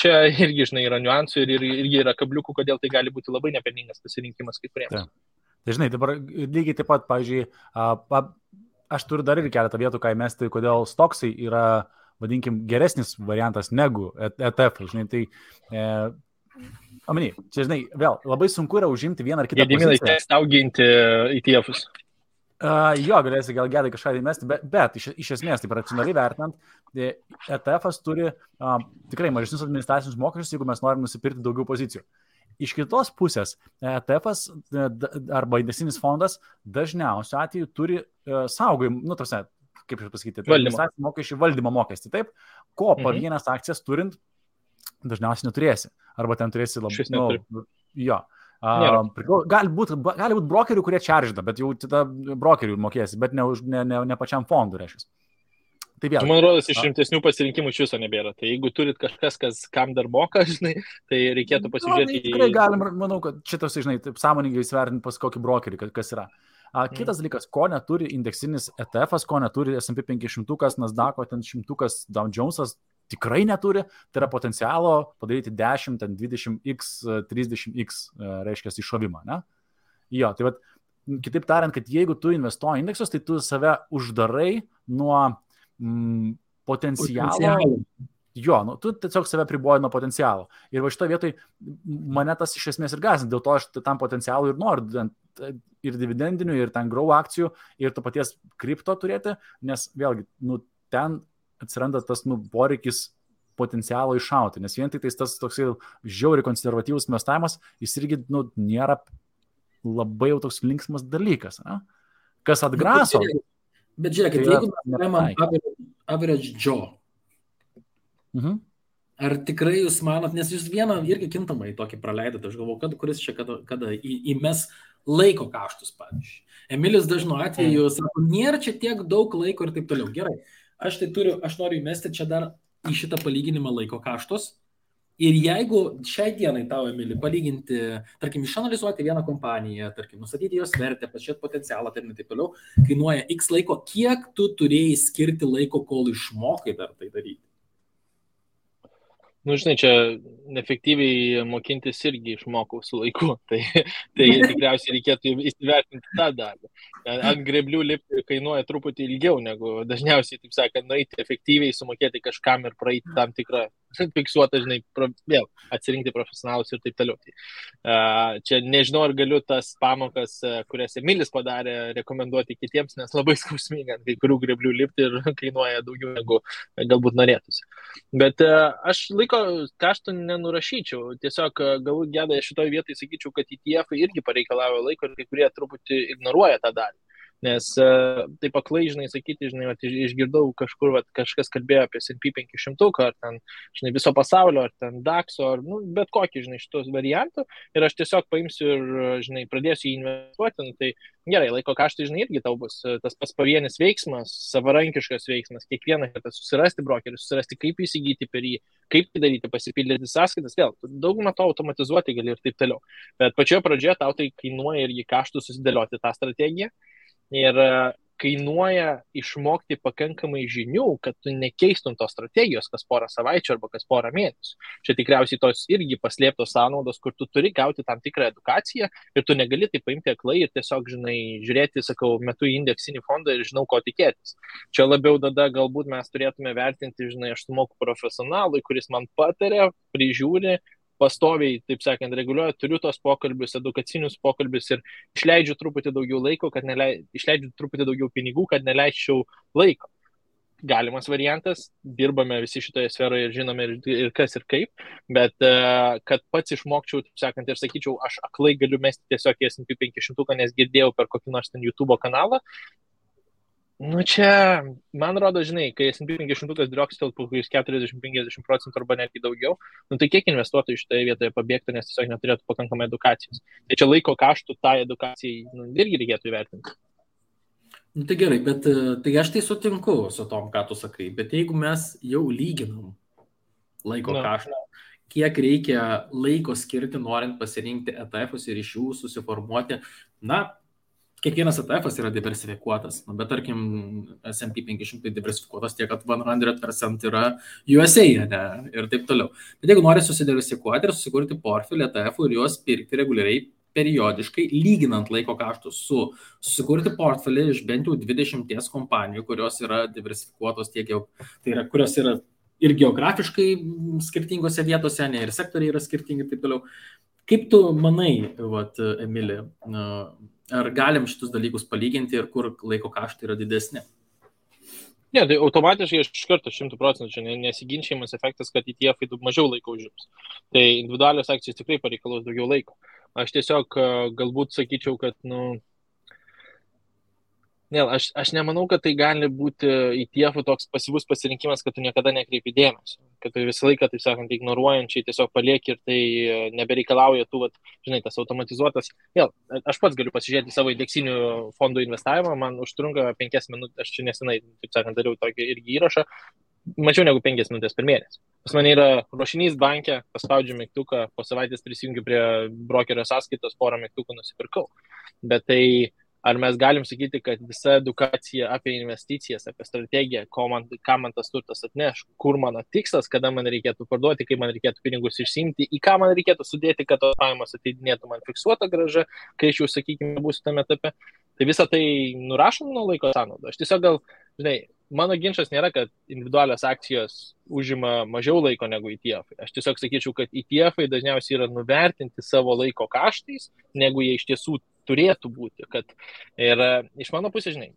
Čia irgi, žinai, yra niuansų ir irgi yra kabliukų, kodėl tai gali būti labai nepelningas pasirinkimas kai kuriems. Tai, žinai, dabar lygiai taip pat, pavyzdžiui, aš turiu dar ir keletą vietų, ką įmesti, kodėl stoksai yra, vadinkim, geresnis variantas negu ETF. Žinai, tai... čia, žinai, vėl, labai sunku yra užimti vieną ar kitą poziciją. Gediminai, teks auginti ETF-us. Jo, galėsi gal gedai kažką įmesti, bet iš esmės, taip racionaliai vertinant, ETF-as turi tikrai mažesnius administracinius mokesčius, jeigu mes norim nusipirkti daugiau pozicijų. Iš kitos pusės, ETF-as arba indeksinis fondas dažniausiu atveju turi saugojimą, kaip aš pasakyti, administracinių mokesčių valdymo mokestį, taip, ko po vienas akcijas turint dažniausiai neturėsi. Arba ten turėsi labai, jo. Gali būti brokerių, kurie čaržda, bet jau tada brokerių mokėsi, bet ne pačiam fondui, reiškia. Tai vėl. Man rodos, iš rimtesnių pasirinkimų iš viso nebėra. Tai jeigu turit kažkas, kam dar moka, žinai, tai reikėtų pasižiūrėti. Tikrai galim, manau, kad šitas, žinai, taip sąmoningai įsivertinti pas kokį brokerį, kas yra. Kitas dalykas, ko neturi indeksinis ETF-as, ko neturi S&P 500, Nasdaq'o, ten 100, Dow Jones'as, tikrai neturi, tai yra potencialo padaryti 10, 20x, 30x, reiškia, iššovimą, ne? Jo, tai vat, kitaip tariant, kad jeigu tu investuoji indeksus, tai tu save uždarai nuo potencialo. Jo, tu tiesiog save priboji nuo potencialo. Ir va šitoje vietoje mane tas iš esmės ir gąsdina, dėl to aš tam potencialų ir noriu ir dividendinių, ir ten grow akcijų, ir to paties kripto turėti, nes vėlgi, ten atsiranda tas poreikis potencialo iššauti, nes vien tik tas toksai žiauriai konservatyvus investavimas, jis irgi nėra labai jau toks linksmas dalykas, ne? Kas atgraso. Bet žiūrėkit, jeigu mes paimam average Joe, ar tikrai jūs manot, nes jūs vieną irgi kintamai tokį praleidote, aš galvoju, kuris čia kada įmes laiko kaštus, pavyzdžiui. Emilis dažnu atveju sako, nėra čia tiek daug laiko ir taip toliau. Gerai. Aš noriu įmesti čia dar į šitą palyginimą laiko kaštus. Ir jeigu šiai dienai tau, Emili, palyginti, tarkim, išanalizuoti vieną kompaniją, tarkim, nustatyti jos vertę, pažiūrėti potencialą, ir taip toliau, kainuoja X laiko, kiek tu turėjai skirti laiko, kol išmokai dar tai daryti? Nu, žinai, čia efektyviai mokintis irgi išmokau su laiku, tai tikriausiai reikėtų įsivertinti tą darbą. Ant greblių lipti kainuoja truputį ilgiau negu dažniausiai, taip sakant, nueiti efektyviai, sumokėti kažkam ir praeiti tam tikrą fiksuotą, žinai, vėl atsirinkti profesionalus ir taip toliau. Tai, čia nežinau, ar galiu tas pamokas, kurias Emilis padarė, rekomenduoti kitiems, nes labai skausminga ant kai kurių greblių lipti ir kainuoja daugiau negu galbūt norėtųsi. Bet aš laiko kaštų nenurašyčiau. Tiesiog galbūt Gedai šitoje vietoje sakyčiau, kad ETF irgi pareikalauja laiko ir kai kurie truputį ignoruoja tą dalį. Nes taip aklai, žinai, sakyti, žinai, išgirdau kažkur, kažkas kalbėjo apie S&P 500, ar ten, žinai, viso pasaulio, ar ten DAX, ar, bet kokį, žinai, šitos variantų. Ir aš tiesiog paimsiu ir, žinai, pradėsiu jį investuoti. Tai gerai, laiko kaštai, žinai, irgi tau bus tas pats pavienis veiksmas, savarankiškas veiksmas, kiekvieną kartą susirasti brokerį, susirasti, kaip įsigyti per jį, kaip tai daryti, pasipildyti sąskaitas, vėl, daugumą to automatizuoti gali ir taip toliau. Bet pačioje pradžioje tau tai kainuoja irgi kaštų susidėlioti tą strategiją. Ir kainuoja išmokti pakankamai žinių, kad tu nekeistum tos strategijos kas porą savaičių arba kas porą mėnesių. Čia tikriausiai tos irgi paslėptos sąnaudos, kur tu turi gauti tam tikrą edukaciją ir tu negali tai paimti aklai ir tiesiog, žinai, žiūrėti, sakau, metu į indeksinį fondą ir žinau, ko tikėtis. Čia labiau tada galbūt mes turėtume vertinti, žinai, aš sumoku profesionalui, kuris man pataria, prižiūri, pastoviai, taip sakant, reguliuoju, turiu tos pokalbius, edukacinius pokalbius ir išleidžiu truputį daugiau laiko, išleidžiu truputį daugiau pinigų, kad neleisčiau laiko. Galimas variantas, dirbame visi šitoje sferoje ir žinome ir kas ir kaip, bet kad pats išmokčiau, taip sakant, ir sakyčiau, aš aklai galiu mesti tiesiog į S&P 500, nes girdėjau per kokį nors ten YouTube kanalą. Nu čia, man rodo, žinai, kai S&P 500 driokstel po 40-50% arba netgi daugiau, nu tai kiek investuotojų šitoje vietoje pabėgtų, nes tiesiog neturėtų pakankamai edukacijos. Tai čia laiko kaštų tai edukacijai irgi reikėtų įvertinti. Nu, tai gerai, bet tai aš tai sutinku su tom, ką tu sakai, bet jeigu mes jau lyginam laiko kaštą, kiek reikia laiko skirti, norint pasirinkti ETF-us ir iš jų susiformuoti, kiekvienas ETF yra diversifikuotas, bet tarkim S&P 500 diversifikuotas tiek, kad 100% yra USA, ne, ir taip toliau. Bet jeigu nori susidiversifikuoti ir susikurti portfelį ETF ir juos pirkti reguliariai, periodiškai, lyginant laiko kaštus susikurti portfelį iš bent jau 20 kompanijų, kurios yra diversifikuotos tiek jau, tai yra, kurios yra ir geografiškai skirtingose vietose, ne, ir sektoriai yra skirtingi ir taip toliau. Kaip tu manai, Emili, ar galim šitus dalykus palyginti ir kur laiko kaštai yra didesni? Ne, tai automatiškai iš karto 100% čia nesiginčiamas efektas, kad ETF mažiau laiko užims. Tai individualios akcijos tikrai pareikalaus daugiau laiko. Aš tiesiog galbūt sakyčiau, kad, aš nemanau, kad tai gali būti ETF toks pasyvus pasirinkimas, kad tu niekada nekreipi dėmesio. Kad tu visą laiką, taip sakant, ignoruojančiai tiesiog palieki ir tai nebereikalauja tų, žinai, tas automatizuotas. Vėl, aš pats galiu pasižiūrėti savo indeksinių fondų investavimą, man užtrunka 5 minutės, aš čia nesenai, taip sakant, dariau tokį irgi įrašą, mačiau negu 5 minutės per mėnesį. Pas mane yra ruošinys banke, paspaudžiu mygtuką, po savaitės prisijungiu prie brokerio sąskaitos, porą mygtukų nusipirkau. Bet tai ar mes galim sakyti, kad visa edukacija apie investicijas, apie strategiją, ką man tas turtas atneš, kur mano tikslas, kada man reikėtų parduoti, kaip man reikėtų pinigus išsiimti, į ką man reikėtų sudėti, kad tos pajamos ateidinėtų man fiksuota grąža, kai aš jau, sakykime, būsiu tame etape. Tai visą tai nurašom nuo laiko sąnaudų. Aš tiesiog gal, žinai, mano ginčas nėra, kad individualios akcijos užima mažiau laiko negu ETF. Aš tiesiog sakyčiau, kad ETF dažniausiai yra nuvertinti savo laiko kaštais, negu jie iš tiesų turėtų būti. Ir iš mano pusės, žinai,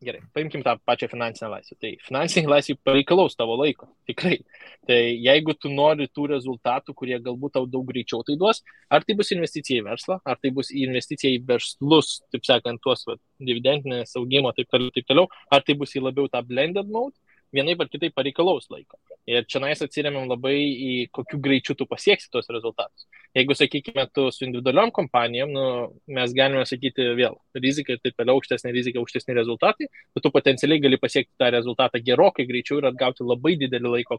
gerai, paimkim tą pačią finansinę laisvę. Tai finansinė laisvė pareikalaus tavo laiko, tikrai. Tai jeigu tu nori tų rezultatų, kurie galbūt tau daug greičiau tai duos, ar tai bus investicija į verslą, ar tai bus investicija į verslus, taip sakant, tuos dividendinės augimo, taip toliau, ar tai bus į labiau tą blended mode, vienaip ar kitaip pareikalaus laiko. Ir čia atsiremiam labai į kokiu greičiu tu pasieksi tos rezultatus. Jeigu, sakykime, tu su individualiom kompanijom, mes galime sakyti vėl, rizika ir taip toliau, aukštesnė rizika, aukštesni rezultatai, bet tu potencialiai gali pasiekti tą rezultatą gerokai greičiau ir atgauti labai didelį laiko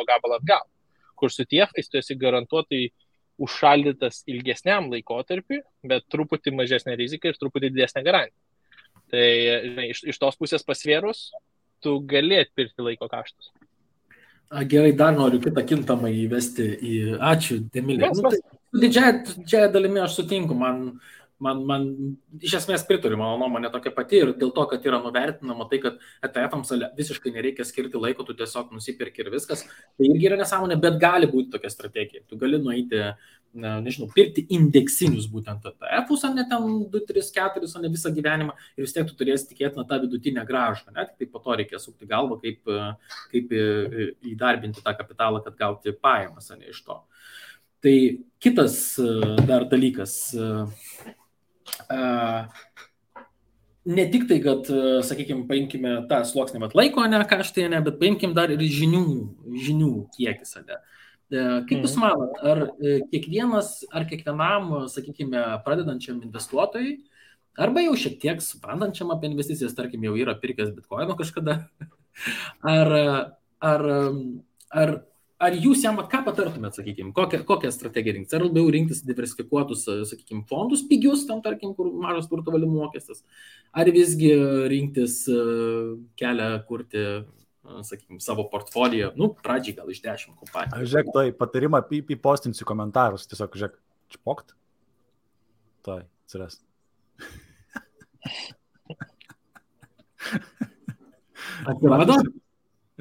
gabalą atgal. Kur su ETF tu esi garantuotai užšaldytas ilgesniam laikotarpiui, bet truputį mažesnė rizika ir truputį didesnė garantija. Tai iš tos pusės pasvėrus, tu gali atpirkti laiko kaštus. Gerai, dar noriu kitą kintamą įvesti į... Ačiū, Emilija. Didžiąją dalimi aš sutinku, man iš esmės pritariu, mano nuomonė tokia pati ir dėl to, kad yra nuvertinama tai, kad ETF-ams visiškai nereikia skirti laiko, tu tiesiog nusipirki ir viskas, tai irgi yra nesąmonė, bet gali būti tokia strategija. Tu gali nueiti, nežinau, pirkti indeksinius būtent ETF-us, o ne ten 2, 3, 4, o ne visą gyvenimą ir vis tiek tu turėsi tikėti tą vidutinę grąžą, ne? Tik tai po to reikia sukti galvą, kaip įdarbinti tą kapitalą, kad gauti pajamas, ne iš to. Tai kitas dar dalykas, ne tik tai, kad, sakykime, paimkime tą sluoksnį laiko, ne kaštai, ne, bet paimkime dar ir žinių kiekis. Ne. Kaip Jūs manot, ar kiekvienam, sakykime, pradedančiam investuotojui, arba jau šiek tiek suprantančiam apie investicijas, tarkim, jau yra pirkęs bitkoino kažkada, ar jūs jam, ką patartumėt, sakykime, kokią strategiją rinktis? Ar labiau rinktis diversifikuotus, sakykime, fondus pigius, tam, tarkim, kur mažas turto valdymo mokestis? Ar visgi rinktis kelią kurti, sakykime, savo portfoliją, pradžiai gal iš 10 kompanijų? Žiūrėk, tai patarimą įpostinsiu komentarus, tiesiog, žiūrėk, čpokt. Tai, atsiras.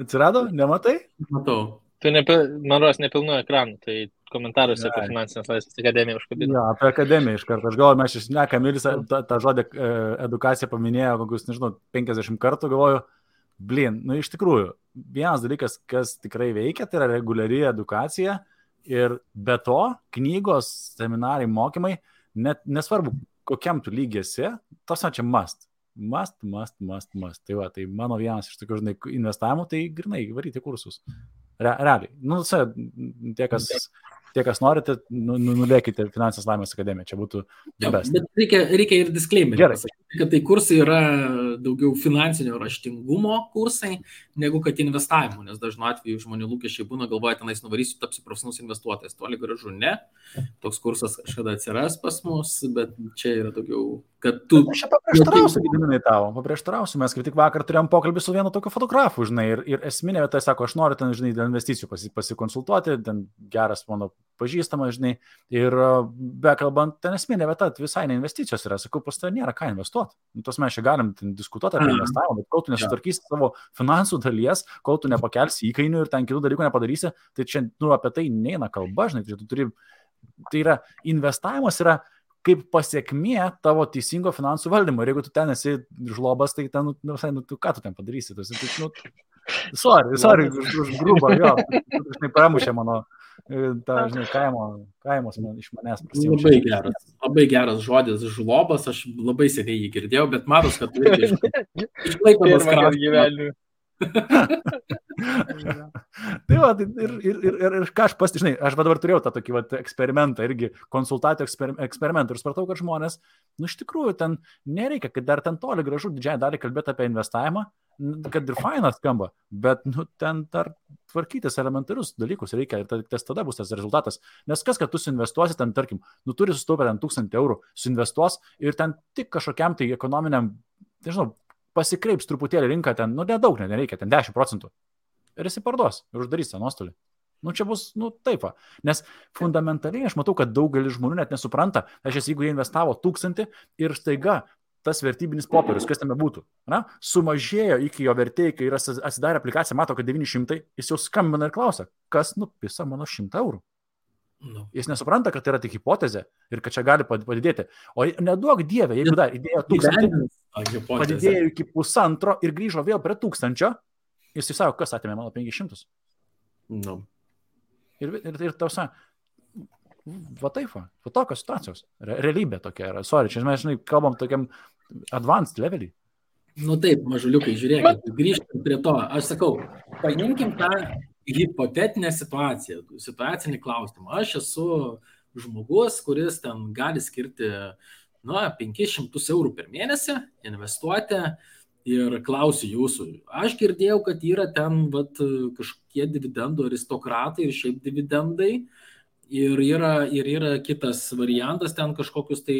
Atsirado? Nematai? Matau. Tai man rodos nepilnu ekranu, tai komentaruose apie finansinės laisvės akademiją užkabino. Jo, apie akademiją iš karto. Aš galvoju, mes išsneka, Emilis tą žodį edukaciją paminėjo kokius, nežinau, 50 kartų, galvoju, iš tikrųjų, vienas dalykas, kas tikrai veikia, tai yra reguliari edukacija ir be to knygos, seminarai, mokymai, net nesvarbu, kokiam tu lygiesi, tos čia must. Tai va, tai mano vienas iš tokių, žinai, investavimų, tai grinai varyti kursus. Realiai. Tie, kas norite, nulėkite Finansinės laimės akademiją. Čia būtų best. Bet reikia ir disclaimerį pasakyti, kad tai kursai yra daugiau finansinio raštingumo kursai, negu kad investavimo, nes dažnu atveju žmonių lūkesčiai būna, galvoja, tenais nuvarysiu, tapsiu profesionalus investuotojas. Toli gražu ne. Toks kursas kažkada atsiras pas mus, bet čia yra daugiau, kad tu... Aš paprieštarausiu, Gediminai tavo, mes kaip tik vakar turėjom pokalbį su vienu tokiu fotografu, žinai, ir esminė vieta, sako, aš noriu ten, žinai, dėl investicijų pasikonsultuoti, ten geras mano pažįstamas, žinai, ir bekalbant, ten esminė vieta visai ne investicijos yra, sakau, pas tai nėra ką investuoti. Tos mes čia galim diskutuoti apie investavimą, bet kol tu nesutvarkysi savo finansų dalies, kol tu nepakelsi įkainių ir ten kitų dalykų nepadarysi, tai čia, apie tai neina kalba, žinai, tai yra, investavimas yra kaip pasiekmė tavo teisingo finansų valdymo. Ir jeigu tu ten esi žlobas, tai ten, tu ką tu ten padarysi? Sorry, už grubą, jo. Žinai, pramušė mano, žinai, kaimos iš manęs prasimšė. Labai geras žodis, žlobas, aš labai seniai jį girdėjau, bet matos, kad tu išlaikomas gyvenimą. Tai va, ir ką aš žinai, aš dabar turėjau tą tokį eksperimentą, irgi konsultacijų eksperimentą ir supratau, kad žmonės, iš tikrųjų, ten nereikia, kad dar ten toli gražu didžiąją dalį kalbėti apie investavimą, kad ir fainas skamba, bet ten dar tvarkytis elementarius dalykus reikia ir tada bus tas rezultatas. Nes kas, kad tu suinvestuosi, ten, tarkim, turi sustaupę 1000 eurų, suinvestuos ir ten tik kažkokiam tai ekonominiam, nežinau, pasikreips truputėlį rinką ten, nedaug nereikia, ten 10%. Ir jis parduos ir uždarys tą nuostolį. Čia bus, taip. Nes fundamentaliai aš matau, kad daugelis žmonių net nesupranta, jeigu jie investavo 1000 ir staiga tas vertybinis popierius, kas tame būtų, sumažėjo iki jo vertėjai, kai yra atsidarę aplikaciją, mato, kad 900, jis jau skambina ir klausia, kas nupisa mano 100 eurų. Jis nesupranta, kad tai yra tik hipotezė ir kad čia gali padidėti. O neduok dievė, jeigu dar įdėjo 1000, padidėjo iki 1,5 ir grįžo vėl prie 1000, jis sako, kas atėmė mano 500. Ir tausa, va taip, va tokios situacijos. Realybė tokia yra. Sorry, čia mes, žinai, kalbam tokiam advanced levelį. Taip, mažuliukai, žiūrėkit, grįžtam prie to. Aš sakau, paimkim tą hipotetinę situacinį klausimą. Aš esu žmogus, kuris ten gali skirti 500 eurų per mėnesį, investuoti ir klausiu jūsų. Aš girdėjau, kad yra ten kažkokie dividendų aristokratai ir šiaip dividendai ir yra kitas variantas ten kažkokius tai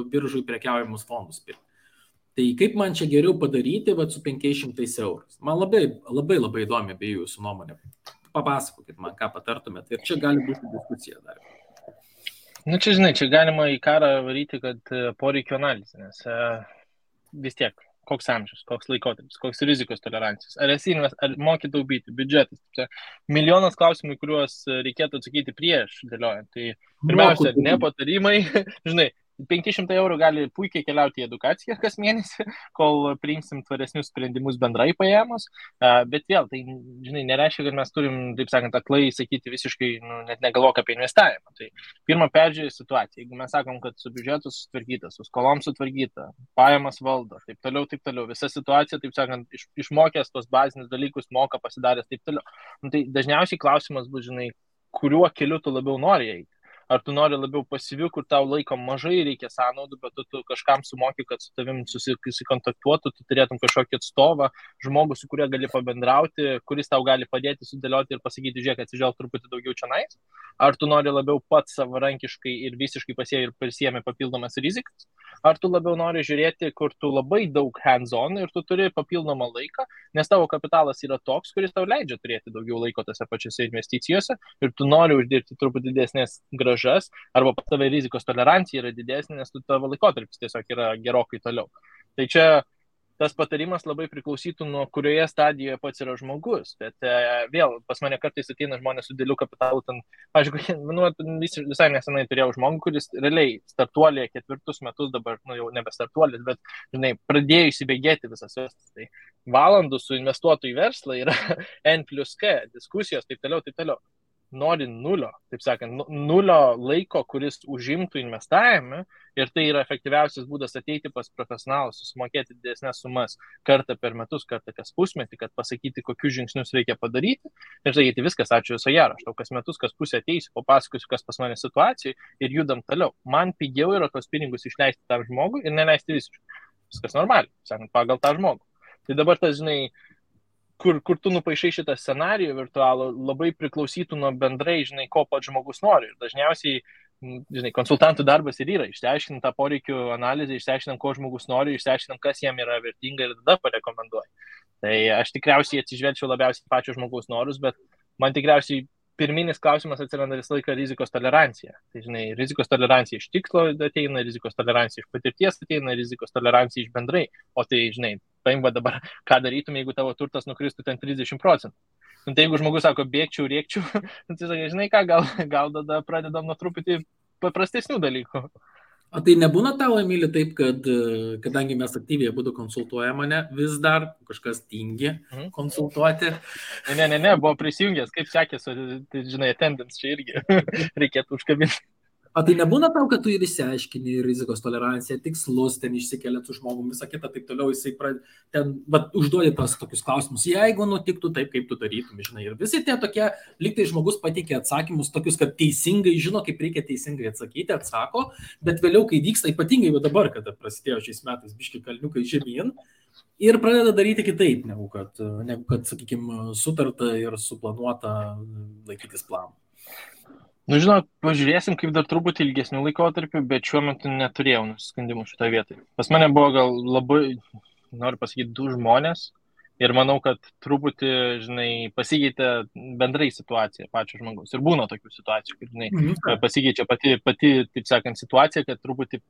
biržui prekiaujamus fondus pirkti. Tai kaip man čia geriau padaryti su 500 eurų? Man labai įdomi apie jūsų nuomonę. papasakokit man, ką patartumėt. Ir čia gali būti diskusija dar. Nu, čia, žinai, čia galima į karą varyti, kad poreikio analizė, nes vis tiek, koks amžius, koks laikotarpis, koks rizikos tolerancijos, ar moki taupyti, biudžetas. Čia milijonas klausimų, kuriuos reikėtų atsakyti prieš dėliojant. Tai pirmiausia, ne patarimai, žinai, 500 eurų gali puikiai keliauti į edukaciją kas mėnesį, kol priimsim tvaresnius sprendimus bendrai paėmus, bet vėl, tai, žinai, nereiškia, kad mes turim, taip sakant, aklai sakyti visiškai, net negalvok apie investavimą. Tai pirmą peržiūrė situaciją, jeigu mes sakom, kad su biudžetu sutvarkyta, su skolom sutvarkyta, pajamas valdo, taip toliau, visa situacija, taip sakant, išmokęs tos bazinius dalykus, moka pasidaręs, taip toliau. Tai dažniausiai klausimas bus, žinai, kuriuo keliu tu labiau nori eiti. Ar tu nori labiau pasyvių, kur tau laiko mažai reikia sąnaudų, bet tu kažkam sumoki, kad su tavim susikontaktuotų, tu turėtum kažkokį atstovą, žmogų, su kuriuo gali pabendrauti, kuris tau gali padėti sudėlioti ir pasakyti, žiūrėk, atsižvelg truputį daugiau čionais. Ar tu nori labiau pats savarankiškai ir visiškai pasiemi papildomas rizikas? Ar tu labiau nori žiūrėti, kur tu labai daug hands-on ir tu turi papildomą laiką, nes tavo kapitalas yra toks, kuris tau leidžia turėti daugiau laiko tose pačiose investicijose ir tu nori uždirbti truputį didesnės grąžas, arba pas tave rizikos tolerancija yra didesnė, nes tavo laikotarpis tiesiog yra gerokai toliau. Tai čia tas patarimas labai priklausytų nuo kurioje stadijoje pats yra žmogus, bet vėl pas mane kartais ateina žmonės su dideliu kapitalu, visai nesenai turėjau žmogų, kuris realiai startuolė 4 metus dabar, jau nebe startuolis, bet, žinai, pradėjo įsibėgėti visas vestas. Tai valandų su investuotojų į verslą yra N+K, diskusijos, taip toliau. Nori nulio, taip sakant, nulio laiko, kuris užimtų investavime ir tai yra efektyviausias būdas ateiti pas profesionalus, susimokėti didesnės sumas kartą per metus, kartą kas pusmetį, kad pasakyti, kokius žingsnius reikia padaryti ir sakyti, viskas, ačiū viso gero, aš tau kas metus, kas pusę ateisiu, papasakosiu, kas pas mane situacijai ir judam toliau. Man pigiau yra tos pinigus išleisti tam žmogui ir neleisti visiškai. Viskas normaliai, sakant, pagal tą žmogų. Tai dabar tas, žinai, kur tu nupaišai šitą scenarijų virtualų, labai priklausytų nuo bendrai, žinai, ko pats žmogus nori. Ir dažniausiai, žinai, konsultantų darbas ir yra, išsiaiškinam tą poreikių analizę, išsiaiškinam, ko žmogus nori, išsiaiškinam, kas jam yra vertinga ir tada parekomenduoju. Tai aš tikriausiai atsižvelgčiau labiausiai pačio žmogaus norus, bet man tikriausiai pirminis klausimas atsiranda visą laiką rizikos tolerancija. Tai, žinai, rizikos tolerancija iš tikslo ateina, rizikos tolerancija iš patirties ateina, rizikos tolerancija iš bendrai. O tai, žinai, paimba dabar, ką darytum, jeigu tavo turtas nukristų ten 30%. Tai jeigu žmogus sako, bėgčiau, rėkčiau, tai sakai, žinai ką, gal tada pradedam nuo truputį paprastesnių dalykų. O tai nebūna tavo, Emili, taip, kad kadangi mes aktyviai būdu konsultuoja mane, vis dar kažkas tingi konsultuoti? Ne, buvo prisijungęs, kaip sekėsi, tai, žinai, attendance čia irgi reikėtų užkabinti. O tai nebūna tau, kad tu ir išsiaiškini rizikos toleranciją, tikslus, ten išsikeliat su žmogum, visą kitą, taip toliau, jisai ten užduodi tas tokius klausimus, jeigu nutiktų taip, kaip tu darytum, žinai. Ir visi tie tokie, lyg tai žmogus pateikė atsakymus tokius, kad teisingai žino, kaip reikia teisingai atsakyti, atsako, bet vėliau, kai vyksta, ypatingai jau dabar, kada prasidėjo šiais metais biški kalniukai žemyn, ir pradeda daryti kitaip, negu kad sakykime, sutarta ir suplanuota laikytis planų. Nu, žinok, pažiūrėsim, kaip dar truputį ilgesnių laikotarpių, bet šiuo metu neturėjau nusiskundimų šitoje vietoje. Pas mane buvo gal labai, noriu pasakyti, 2 žmonės ir manau, kad truputį, žinai, pasikeitė bendrai situacija pačio žmogaus. Ir būna tokių situacijų, kad, žinai, pasikeičia pati, taip sakant, situacija, kad truputį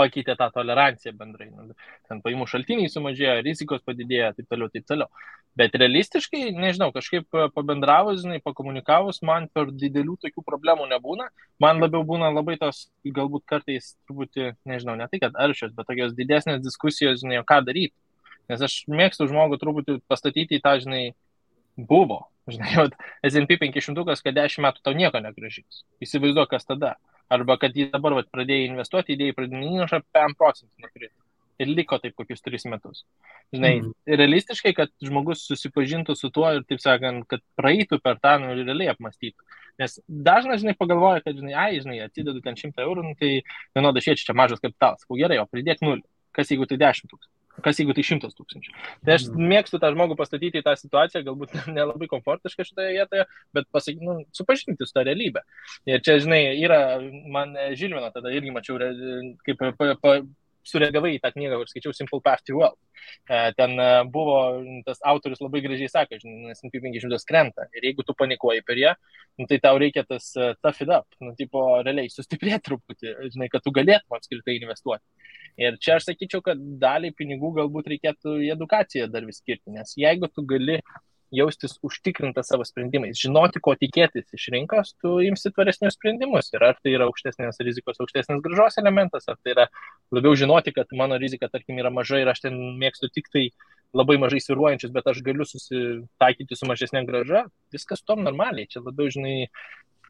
pakeitė tą toleranciją bendrai. Ten paimų šaltiniai sumažėjo, rizikos padidėjo, taip toliau. Bet realistiškai, nežinau, kažkaip pabendravus, žinai, pakomunikavus, man per didelių tokių problemų nebūna. Man labiau būna labai tos, galbūt kartais truputį, nežinau, ne tai, kad aršios, bet tokios didesnės diskusijos, žinai, ką daryti. Nes aš mėgstu žmogų truputį pastatyti į tą, žinai, buvo. Žinai, S&P 500, kad 10 metų tau nieko negrąžins. Įsivaizduok, kas tada. Arba kad jį dabar pradėjai investuoti, idėjai pradinį įnašą 5% neturėtų. Ir liko taip kokius 3 metus. Žinai, realistiškai, kad žmogus susipažintų su tuo ir, taip sakant, kad praeitų per tą ir realiai apmąstytų. Nes dažnas, žinai, pagalvoja, kad, žinai, atsidedu ten 100 eurų, tai vienoda šiečia, čia mažas kapitalas. Gerai, o pridėk 0. Kas jeigu tai 10 000? Kas jeigu tai 100 000? Tai aš mėgstu tą žmogų pastatyti į tą situaciją, galbūt nelabai komfortiška šitoje vietoje, bet supažinti su tą realybę. Ir čia, žinai, yra, man Žilvino tada irgi mačiau, kaip sureagavai į tą knygą, kur skaičiau Simple Path to Wealth. Ten buvo, tas autorius labai gražiai sako, žinai, S&P 500 krenta. Ir jeigu tu panikuoji per ją, tai tau reikia tas tough it up, tipo, realiai sustiprėti truputį, žinai, kad tu galėtum apskritai investuoti. Ir čia aš sakyčiau, kad dalį pinigų galbūt reikėtų į edukaciją dar vis skirti, nes jeigu tu gali jaustis užtikrinta savo sprendimais, žinoti, ko tikėtis iš rinkos, tu imsi tvaresnius sprendimus. Ir ar tai yra aukštesnės rizikos, aukštesnės grąžos elementas, ar tai yra labiau žinoti, kad mano rizika, tarkim, yra maža ir aš ten mėgstu tik tai labai mažai sviruojančius, bet aš galiu susitaikyti su mažesnė grąža, viskas tom normaliai. Čia labiau, žinai,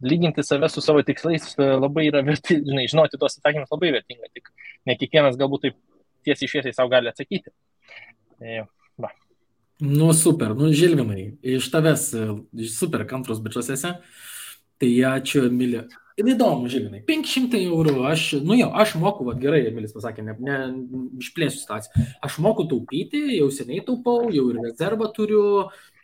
lyginti save su savo tikslais labai yra verti, žinai, žinoti tuos atsakymus labai vertinga, tik ne kiekvienas galbūt taip tiesiai šviesiai savo gali atsakyti. Va. Nu, super, nu, Žilvinai, iš tavęs super kantrus bičiuose, tai ačiū, Emilija. Ir įdomu, Žilvinai, 500 eurų, aš moku, va, gerai, Emilis pasakė, ne išplėsiu situaciją, aš moku taupyti, jau seniai taupau, jau ir rezervą turiu,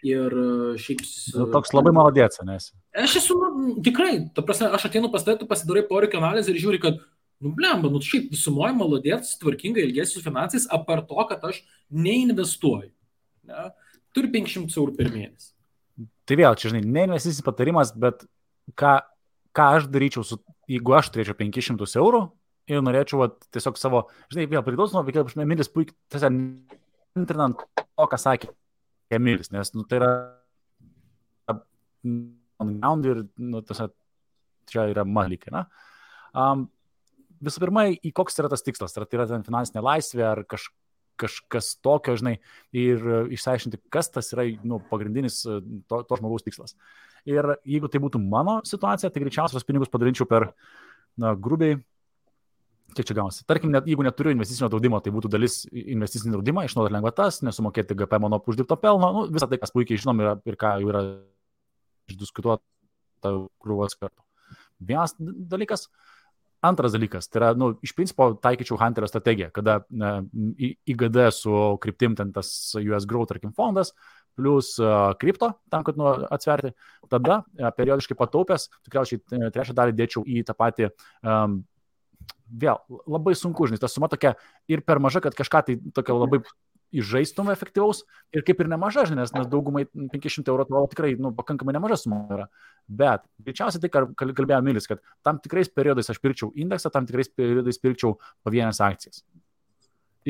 ir šiaip... Toks labai maladėts, nes. Aš esu, tikrai, ta prasme, aš ateinu pas tai, tu pasidarai poreikio analizę ir žiūri, kad blemba, šiaip visumoje maladėts, tvarkingai ilgėsiu finansais, apart to, kad aš neinvestuoju. Ne? Turi 500 eurų per mėnesį. Tai vėl, čia, žinai, ne investicinis patarimas, bet ką aš daryčiau, jeigu aš turėčiau 500 eurų ir norėčiau tiesiog savo, žinai, vėl priklauso nuo veikėjo, Emilis puikiai, tiesiog intrinant to, ką sakė Emilis, nes, tai yra ir, tiesiog, čia yra malykai, na. Visų pirma, į koks yra tas tikslas, ar tai yra finansinė laisvė, ar kažkas tokio, žinai, ir išsiaiškinti, kas tas yra pagrindinis to žmogaus tikslas. Ir jeigu tai būtų mano situacija, tai greičiausiai tos pinigus padalinčiau per, grubiai, kiek čia gaunasi. Tarkim, jeigu neturiu investicinio draudimo, tai būtų dalis investicinio draudimo, išnaudoti lengvatas, nesumokėti GPM nuo uždirbto pelno, visą tai, kas puikiai žinom ir ką jau yra išdiskutuota krūvos kartų. Vienas dalykas. Antras dalykas, tai yra, iš principo taikyčiau Hunterio strategiją, kada IGD su kryptim ten tas US Growth, tarkim, fondas, plus kripto, tam, kad atsverti, tada periodiškai pataupęs, tikriausiai trečią dalį dėčiau į tą patį, vėl, labai sunku, žinai, ta suma tokia ir per maža, kad kažką tai tokia labai įžaistum efektyvaus ir kaip ir nemaža, žinai, nes daugumai 500 eurų atrodo tikrai, pakankamai nemaža suma yra. Bet greičiausiai tai, ką kalbėjo Emilis, kad tam tikrais periodais aš pirkčiau indeksą, tam tikrais periodais pirkčiau pavienės akcijas.